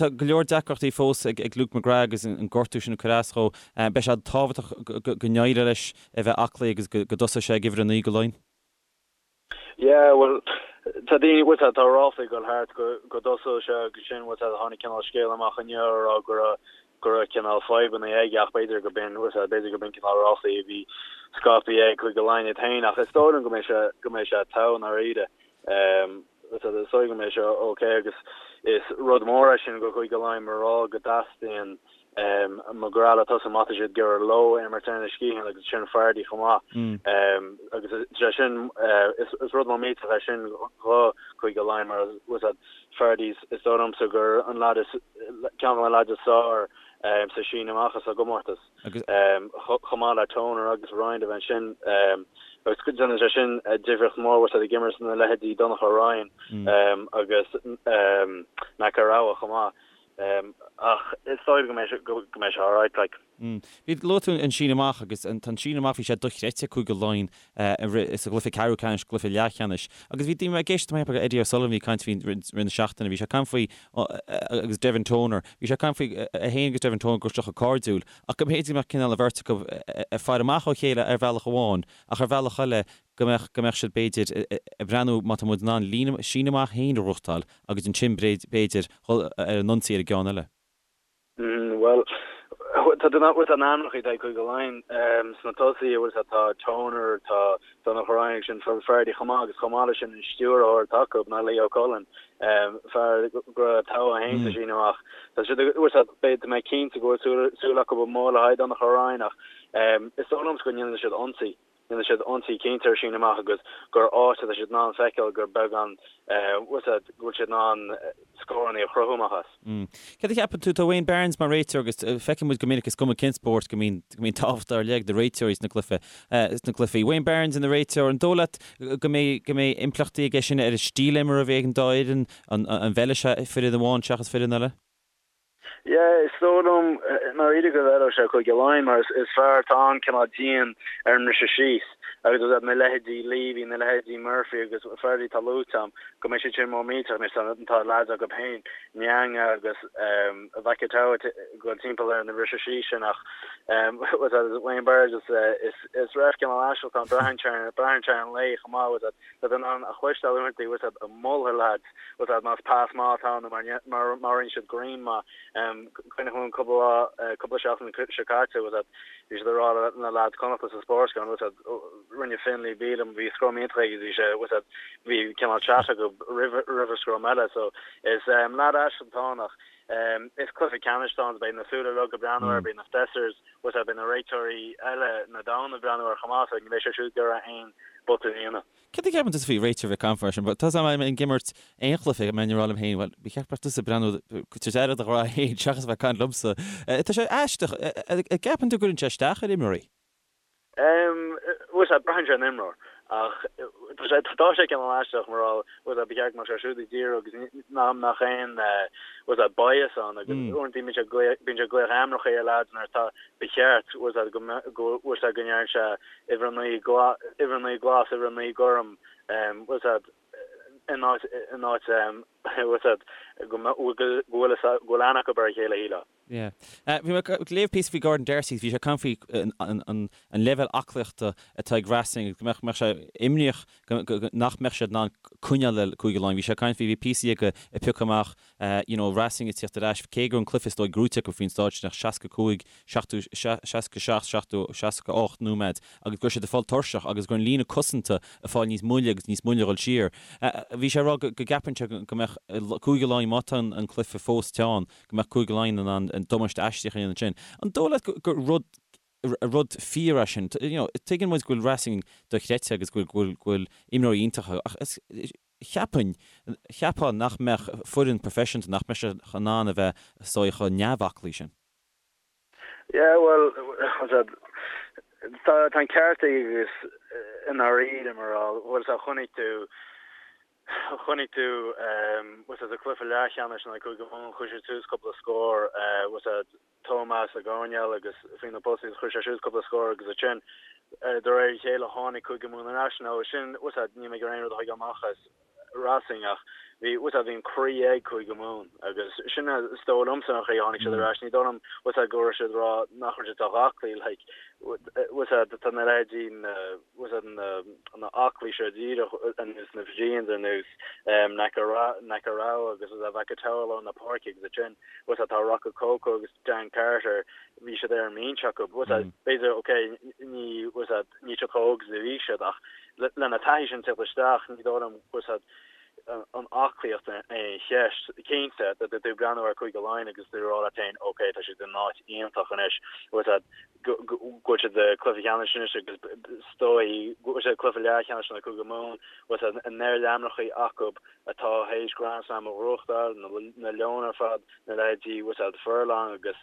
Tá go leor deacrachtaí fós ag Luke McGrath agus an gortú sin ag cur as dhó. Beidh sé tábhachtach go n-éireoidh leis a bheith aclaí agus go dtosóidh sé ag uimhir 9 go Laighin. Yeah, bhuel, tá daoine, bhfuil fhios a'd, tá ráflaí ag dul thart go, go dtosódh sé agus sin, bhfuil fhios a'd, tháinig cineál scéal amach inniu a rá go raibh, go raibh cineál fadhbanna aige ach b'fhéidir go b'in, bhfuil fhios a'd, b'fhéidir go b'in cineál ráflaí a bhí scaipthe ag Cúige Laighean iad féin ach is dóigh liom go mbeidh sé, go mbeidh sé togha i ndáiríre. Bhfuil fhios a'd, is dóigh go mbeidh sé ok agus is rud mór é sin go Chúige Laighean mar rá go dteastaíonn McGrath le tosú má tá siad ag iarraidh leo imirt ar na sciatháin agus sin Fardy chomh maith. Agus sé sin is rud mór millteach é sin do Chúige Laighean mar bhfuil fhios a'd Fardy is dóigh liomsa gur an leaid is ceann de na leaids is fearr sa síneadh amach as an gcomórtas. Chomh maith le Toner agus Ryan a bheith ansin agus déanann sé sin difríocht mhór bhfuil fhios a'd ag imirt na leithéidí Donnacha Ryan agus Nakarawa chomh maith. Ach is dóigh go mbeidh sé go mbeidh sé alright like. Bhí, luaigh tú an síneadh amach agus an síneadh amach, bhí sé dochreidte ag Cúige Laighean sa gcluiche ceathrú ceannais, gcluiche leathcheannais. Agus bhí daoine ag éisteacht le Eddie O'Sullivan, bhí caint faoi rith na seachtaine, bhí sé ag caint faoi agus Devin Toner, bhí sé ag caint faoi é féin agus Devin Toner go raibh siad chomh cairdiúil ach go mb'fhéidir go mbeadh cineál an bheirt acu ag faire amach ó chéile ar bhealach amháin ach ar bhealach eile go mbeadh, go mbeadh siad b'fhéidir ag breathnú má tá muid in ann líne, síneadh amach féin a ghnóthachtáil agus ansin b'fhéidir dhul ar an ionsaí ar an gceann eile. Bhuel, tá na hainmneacha atá ag Cúige Laighean sna tosaithe, bhfuil a fhios agat, tá Toner, tá Donnacha Ryan agus sin Phil Fardy chomh maith agus chomh maith leis sin an stiúrthóir atá acu ná Leo Cullen, fear go raibh togha féin sa síneadh amach. Tá siad, bhfuil a fhios agat, beidh, tá mé cinnte go bhfuil súil acu go mór le haghaidh Donnacha Ryan ach is dóigh liomsa go ndéanfaidh siad ionsaí. Déanfaidh siad ionsaí cinnte ar síneadh amach agus gur áit atá siad in ann feiceáil gur beagán, bhfuil a fhios agat, go bhfuil siad in ann scóranna a chruthú amach as. Céard a cheapann tú? Tá Wayne Barnes mar réiteoir agus feiceann muid go minic is cuma cén spórt go mbíonn go mbíonn tábhacht ar leith ag na réiteoirí sna cluiche sna cluichí. Wayne Barnes ina réiteoir, an dóigh leat go mbeidh go mbeidh impleachtaí aige sin ar an stíl imeartha a bheidh ag an dá fhoireann? An an bhfeilfidh sé foireann amháin seachas foireann eile? Yeah, is dóigh liom i ndáiríre go bhfeilfeadh sé Cúige Laighean mar is fear atá an-cineál dian ar an mbriseadh síos agus is iad na leithéidí Leavy, na leithéidí Murphy agus Fardy atá luaite agam go mbeidh siad sin mór millteach anois tá tá leaids acu féin, Nianga agus Vakatawa ag dul timpeall ar na briseadh síos sin ach Wayne Barnes is is ref cineál aisteach atá ann braitheann sé braitheann sé ar an lae chomh maith tá tú in ann a chloisteáil uaireanta bhfuil a fhios agat ag moladh leaids bhfuil a fhios agat más pas maith atá ann nó má rinne siad greim maith. Cuimhnigh liom cúpla lá, cúpla seachtain seo caite, bhfuil a fhios agat, bhí siad ag rá le na lads Connachta sa Sportsground, bhfuil a fhios agat, rinne Finlay Bealham, bhí scrum iontach aige, bhí sé, bhfuil a fhios agat, bhí cineál chat acu roimh roimh an scrum eile. So is leaid aisteach atá ann ach is cluiche ceannais atá ann, beidh na súile uilig ag breathnú air, beidh na assessors, bhfuil a fhios agat, beidh na réiteoirí eile na domhan ag breathnú air chomh maith, so ní bheidh sé siúd ag iarraidh aon botún a dhéanamh. Céard a cheapann tusa faoi réiteoir bheith ag caint mar sin? Tá a fhios agam ag imirt aon chluiche, go mbeinn ag rá liom féin, bhuel, ba cheart go mbeadh tusa ag breathnú tabhairt aire do do ghrá féin seachas a bheith ag caint liomsa. Tá sé aisteach. An gceapann tú go gcuireann sé isteach ar imreoirí? Bhuel, sea, braitheann sé ar an imreoir. Ach tá sé, tá sé cineál aisteach mar bhfuil a fhios agat, ba cheart go mbeadh sé siúd ag díriú agus nach mbeadh aon, bhfuil a fhios agat, bias ann agus uaireanta bíonn sé ag glaoch, bíonn sé ag glaoch ainmneacha ar leaids nuair atá, ba cheart, bhfuil a fhios agat, go mbeadh, go bhfuil a fhios agat go ndearna sé uimhir 9 glas, uimhir 9 glas, uimhir 9 gorm, bhfuil a fhios agat, in áit, in áit, bhfuil a fhios agat, go go bhfuil go bhfuil aithne acu ar a chéile, shílfeá. Yeah. Bhí mé ag léamh píosa faoi Gordon D'Arcy, bhí sé ag caint faoi an an leibhéal aclaíochta atá ag Racing agus go mbeadh, mbeadh sé imníoch go, go, nach mbeadh siad in ann coinneáil le Cúige Laighean. Bhí sé ag caint faoi, bhí píosaí aige ag piocadh amach you know, Racing ag tíocht ar ais, cé go raibh an cluiche is dóigh gnóite acu faoin stáid sin ach 65, 70, 67, 70, 68 nóiméad agus go raibh siad ag fáil tuirseach agus go raibh an líne cosanta ag fáil níos moille agus níos moille a dhul siar. Bhí sé ag rá go gceapann sé go mbeadh Cúige Laighean, má tá an cluiche fós teann, go mbeadh Cúige Laighean in ann damáiste aisteach a dhéanamh ansin. An dóigh leat gur rud rud fíor é sin? You know, tuigeann muid go bhfuil Racing dochreidte agus go bhfuil go bhfuil imreoirí iontacha ach is Cheapfainn, cheapfá nach mbeadh foireann professionta, nach mbeadh sé in ann a bheith is dóigh chomh neamhaclaí sin. Yeah, bhuel, tá an ceart aige agus i ndáiríre mar bhfuil a fhios agat chonaic tú, chonaic tú, bhfuil a fhios agat sa cluiche leathcheannais in aghaidh Cúige Mumhan, chuir siad suas cúpla scór, bhfuil a fhios agat Tomás Ó Conghaile agus faoi na postaí chuir sé suas cúpla scór agus ansin de réir a chéile tháinig Cúige Mumhan ar ais. Nó sin, bhfuil a fhios agat, níl mé ag iarraidh aon rud a thógáil amach as Racing ach bhí, bhfuil a fhios agat, bhí an croí ag Cúige Mumhan agus sin is dóigh liomsa an chaoi a tháinig siad ar ais. Ní dóigh liom, bhfuil a fhios agat, go raibh siad ag rá nach raibh siad sách aclaí, like, bhfuil a fhios agat, tá na leithéidí na, bhfuil a fhios agat, na, na aclaí seo díreach ar nós na Fijians ar nós Nakarawa agus Vakatawa i lár na páirce agus ansin, bhfuil a fhios agat, tá Rokocoko agus Dan Carter, bhí siad ar an mbinse acu, bhfuil a fhios agat, b'fhéidir, ok, ní, bhfuil a fhios agat, níl siad chomh hóg is a bhí siad ach lena taithí sin teacht isteach, ní dóigh liom, bhfuil a fhios agat, an aclaíocht an cheist. Cinnte, tá tú ag breathnú ar Cúige Laighean agus tú ag rá leat féin, ok, tá siad in áit iontach anois, bhfuil a fhios agat, go bhfuil siad i gcluiche ceannais anois agus is dóigh go bhfuil siad i gcluiche leathcheannais in aghaidh Cúige Mumhan, bhfuil a fhios agat, an oiread ainmneacha acu atá théis Grand Slam a ghnóthachtáil, na Leoin ar fad, na leithéidí, bhfuil a fhios agat, Furlong agus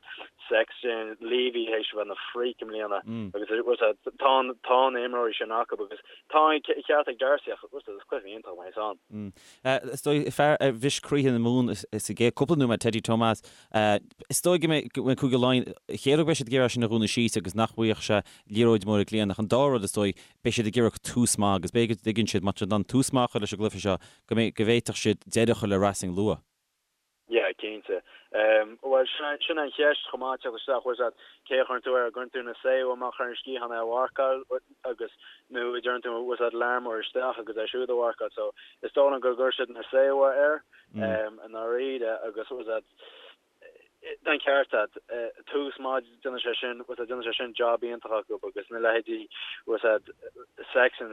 Sexton, Leavy théis a bheith ina freak i mbliana agus bhfuil a fhios agat, tá, tá na imreoirí sin acu agus tá an ceart ag D'Arcy ach bhfuil a fhios agat, is cluiche iontach a bheas ann. Is dóigh, fear a bhris croíthe na Mumhan sa gcéad cúpla nóiméad, Teddy Thomas, is dóigh go mbeidh Cúige Laighean, chéad rud beidh siad ag iarraidh sin a dhúnadh síos agus nach bhfaigheadh sé liathróid mór i gcliathán ach an dara rud is dóigh, beidh siad ag iarraidh tús maith agus b'fhéidir go dtuigeann siad má tá siad in ann tús maith a chur leis an gcluiche seo go mbeidh, go bhféadfadh siad deireadh a chur le Racing luath. Yeah, cinnte. Bhuel, sin an cheist chomh maith, teacht isteach, bhfuil a fhios agat, cé a chuireann tú air, an gcuireann tú Nacewa amach ar an sciathán é a mharcáil agus nó an dtugann tú, bhfuil a fhios agat, Larmour isteach agus é siúd a mharcáil. So, is dóigh liom go gcuirfidh siad Nacewa air i ndáiríre agus, bhfuil a fhios agat, tá an ceart agat, tús maith, déanfaidh sé sin, bhfuil a fhios agat, déanfaidh sé sin job iontach acu agus na leithéidí, bhfuil a fhios agat, Sexton,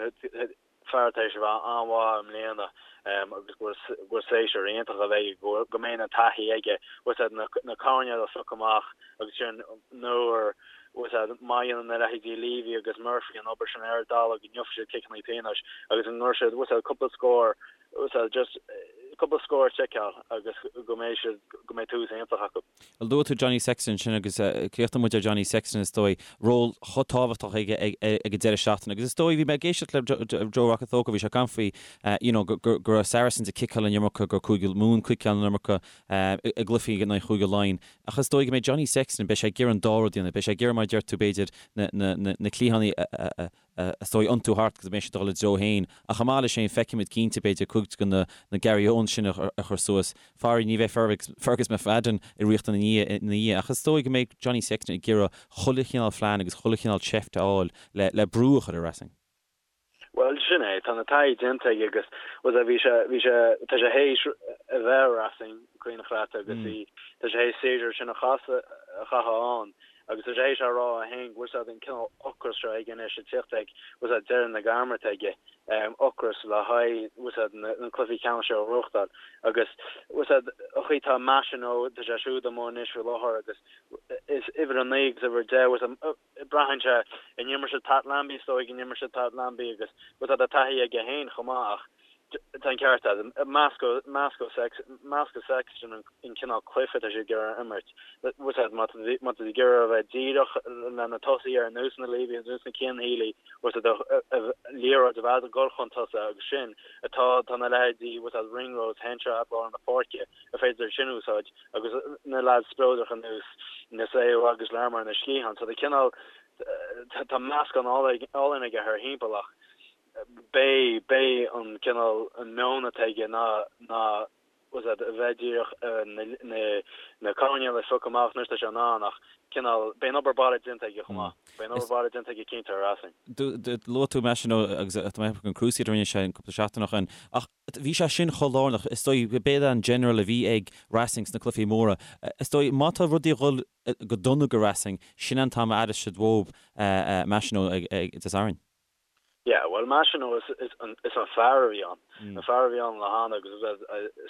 fear tar éis a bheith an-mhaith i mbliana agus go bhfuil séasúr iontach a bheidh aige, go mbeidh an taithí aige, bhfuil a fhios agat, na coirnéil a phiocadh amach agus sin nuair, bhfuil a fhios agat, má dhéanann na leithéidí Leavy agus Murphy an obair sin ar an dtalamh go ngeobhaidh siad ciceanna pionóis agus go gcuirfidh siad, bhfuil a fhios agat, cúpla scór So just cúpla scór a sheiceáil agus go mbeidh siad, go mbeidh tús iontach acu. Bhuel, luaigh tú Johnny Sexton ansin agus críochnóidh muid ar Johnny Sexton is dóigh, ról chomh tábhachtach aige ag an deireadh seachtaine agus is dóigh, bhí mé ag éisteacht le Joe Rokocoko, bhí sé ag caint faoi you know go raibh Saracens ag ciceáil an iomarca, go raibh Cúige Mumhan ciceáil an iomarca i gcluichí in aghaidh Chúige Laighean ach is dóigh go mbeidh Johnny Sexton, beidh sé ag iarraidh an dá rud a dhéanamh, beidh sé ag iarraidh mar a deir tú b'fhéidir na cliathánaí a is dóigh, iontú thart agus go mbeidh siad ag dul ina dtreo féin. Ach chomh maith leis sin, feicfimid cinnte, b'fhéidir, cuid de na Gary Owens sin a chur suas. Faraor, ní bheidh Fergus McFadden i riocht ina dhiaidh, ach is dóigh go mbeidh Johnny Sexton ag iarraidh chuile chineál phlean agus chuile chineál seift a fháil le brú a chur ar Racing. Bhuel, sin é. Tá na taithí déanta aige agus, bhuel, bhí sé, bhí sé, tá sé théis a bheith ar Racing, cuimhneach leat, agus bhí, tá sé théis séasúr sin a chaitheamh ann. Agus tá sé théis a rá é féin go bhfuil a fhios agat an cineál ocras seo aige anois ag tíocht ag, bhfuil a fhios agat, deireadh na gairme atá aige, ocras le haghaidh, bhfuil a fhios agat, na cluichí ceannais seo a ghnóthachtáil. Agus, bhfuil a fhios agat, an chaoi atá Machenaud, tá sé siúd amuigh anois faoi láthair agus is uimhir 9 agus uimhir 10, bhfuil a fhios agat, braitheann sé, an imreoidh siad Pat Lambie, is dóigh go n-imreoidh siad Pat Lambie agus, bhfuil a fhios agat, tá taithí aige féin chomh maith ach, Tá an ceart agat. Meascadh Sexton an cineál cluiche atá siad ag iarraidh a imirt. Bhfuil a fhios agat, má tá siad ag iarraidh a bheith díreach le na tosaithe ar nós na Leavy, ar nós na Cian Healy, bhfuil a fhios agat, liathróid a bheith ag dul chun tosaigh agus sin atá, tá na leithéidí, bhfuil a fhios agat, Ringrose, Henshaw at lár na páirce, ar féidir sin a úsáid agus na leaids spleodracha ar nós Nacewa agus Larmour ar na sciatháin. So tá cineál, tá meascán álainn aige thar thimpeall ach, Beidh, beidh an cineál, an meon atá aige ná, ná, bhfuil a fhios agat, a bheith díreach na, na, na coirnéil a phiocadh amach nuair atá sé in ann ach cineál, beidh an obair baile déanta aige chomh maith. Beidh an obair baile déanta aige cinnte ar Racing. Luaigh tú Machenaud agus tá mé ag ceapadh an Cruciate a rinne sé an cúpla seachtain ó shin ach bhí sé sin chomh lárnach, is dóigh, b'é an general a bhí ag Racing sna cluichí móra. Is dóigh, má tá rudaí ag dhul go dona go Racing, sin an t-am a aireos siad uathub Machenaud ag Dé Sathairn. Yeah, bhuel Machenaud is, is an, is an fear a bhí ann. An fear a bhí ann le hana agus is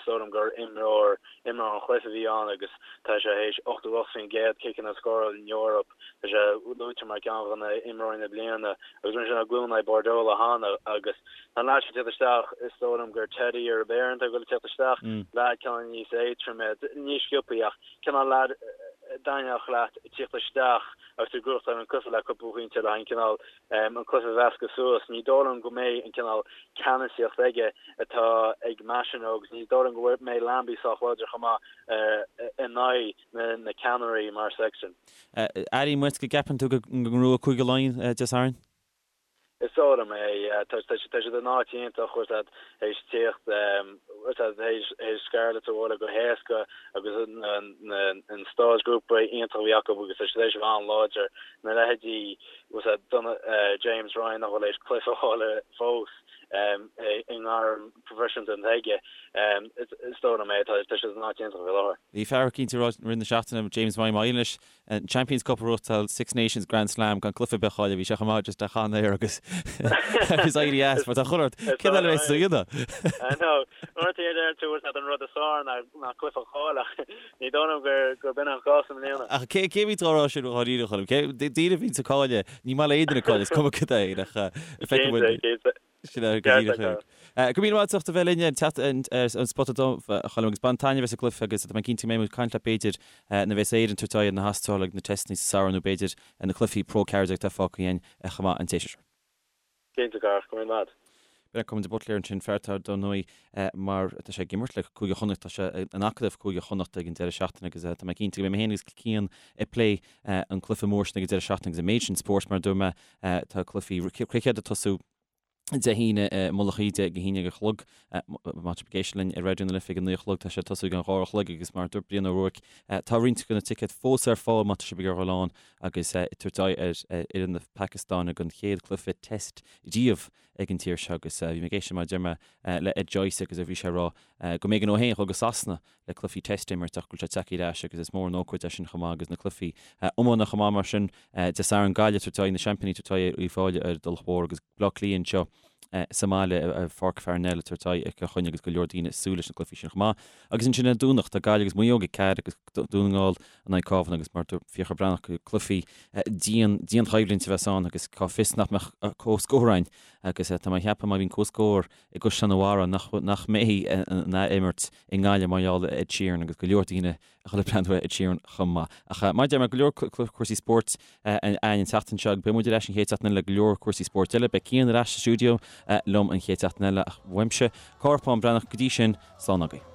dóigh liom gur imreoir, imreoir an chluiche a bhí ann agus tá sé théis 88% ciceanna a scóráil in Eoraip. Tá sé luaite mar ceann de na imreoirí na bliana agus rinne sé an glúin aghaidh Bordeaux le hana agus tá an leaid seo ag tíocht isteach, is dóigh liom gur Teddy Iribaren atá ag dul ag tíocht isteach, leaid cineál níos éadtroime, níos sciobthaí ach cineál leaid a dtaitneodh leat ag tíocht isteach agus tú ag gnóthachtáil an cluiche le cúpla pointe le haghaidh an cineál an cluiche a mheascadh suas. Ní dóigh liom go mbeidh an cineál ceannasaíocht aige atá ag Machenaud agus ní dóigh liom go mbeidh Lambie sách láidir chomh maith in aghaidh na ceannairí mar Sexton. Airím uait go gceapann tú go ngnóthóidh Cúige Laighean Dé Sathairn? Is dóigh liom é. Tá siad in áit iontach, bhfuil a fhios agat, théis tíocht, bhfuil a fhios agat, théis Scarlets a bhualadh go héasca agus an stáid grúpa iontach a bhí acu agus tá siad théis a bheith an-láidir. Na leithéidí bhfuil a fhios agat, James Ryan nach bhfuil théis cluiche a fháil fós i ngairm proifisiúnta atá aige, is dóigh liom é, tá siad in áit iontach faoi láthair. Bhí fear eicínt ag rá i rith na seachtaine, James Ryan, má éiríonn leis an Champions Cup a ghnóthachtáil, Six Nations Grand Slam gan cluiche ar bith a chailleadh, bhí sé chomh maith just a chaitheamh air agus agus éirí as mar tá chuile shórt, cén eile a bheas a dhéanamh? I know, uaireanta deireann tú bhfuil a fhios agat an rud is fearr ná cluiche a chailleadh ach Ní dóigh liom gur b'in an cás i mbliana. Ach cé a bhíonns á rá sin dháiríre, a Choilm? Cé, daoine a bhíonns ag cailleadh, ní maith le aon duine cailleadh, is cuma cad é, ach feicfidh muid. Cinnte, cinnte. Sin é go díreach é. Go raibh míle maith agat as ucht a bheith linn teacht ar an Spota Dubh, a Choilm, agus bain taitneamh as an gcluiche agus tá mé cinnte go mbeidh muid ag caint leat b'fhéidir nuair a bheas Éire ag tabhairt aghaidh ar na hAstrálaigh ag na teisteanna sa samhradh nó b'fhéidir na cluichí Pro 14 atá fágtha againn chomh maith an tséasúr seo. Cinnte, a Chárthaigh, go raibh míle maith. B'in é Colmán de Buitléir ansin, fear atá dar ndóigh mar tá sé ag imirt le Cúige Chonnacht, tá sé in acadamh Cúige Chonnacht ag an deireadh seachtaine agus tá mé cinnte go mbeidh mé féin agus Cian ag plé an cluiche mór sin ag an deireadh seachtaine agus an méid sin spóirt mar a dúirt mé tá cluichí cruicéid ag tosú Dé hAoine i Mullach Íde ag a haon déag a chlog. Má tá sibh ag éisteacht linn ar Raidió na Life ag a 9 a chlog, tá sé ag tosú ag an 2 a chlog agus mar a dúirt Brian Ó Ruairc, tá roinnt de na ticéid fós ar fáil má tá sibh ag iarraidh dul ann agus ag tabhairt aghaidh ar fhoireann na Pacastáine don chéad cluiche Test riamh ag an tír seo agus bhí mé ag éisteacht mar a deir mé le Ed Joyce agus bhí sé ag rá go mb'éigean dó féin dul go Sasana le cluichí Test a imirt ach go bhfuil sé tagtha ar ais agus is mór an ócáid é sin chomh maith agus na cluichí iomána chomh maith mar sin Dé Sathairn Gaillimh ag tabhairt aghaidh na seaimpíní ag tabhairt aghaidh ar Uíbh Fhailí ar an Tulach Mhór agus Baile Átha Cliath anseo sa mbaile i Pháirc Pharnell ag tabhairt aghaidh ar Chill Chainnigh agus go leor daoine ag súil leis na cluichí sin chomh maith. Agus ansin ar an Domhnach tá Gaillimh agus Maigh Eo ag 4 agus Dún na nGall in aghaidh Cabhán agus mar dúirt Fiachra Breathnach cluichí dian dianchoimhlint a bheas ann agus cá bhfios nach mbeadh comhscór ann agus tá mé ag ceapadh má bhíonn comhscór i gCaisleán an Bharraigh nach nach mbeidh an ath-imirt i nGaillimh mar gheall ar Ed Sheeran agus go leor daoine a dhul ag breathnú ar Ed Sheeran chomh maith. Ach mar a deir mé, go leor cúrsaí spóirt againn an tseachtain seo agus beidh muid ar ais an chéad seachtain eile le go leor cúrsaí spóirt eile. Beidh Cian ar ais sa stiúideo liom an chéad seachtain eile ach uaimse, Cárthach Bán Breathnach, go dtí sin, slán agaibh.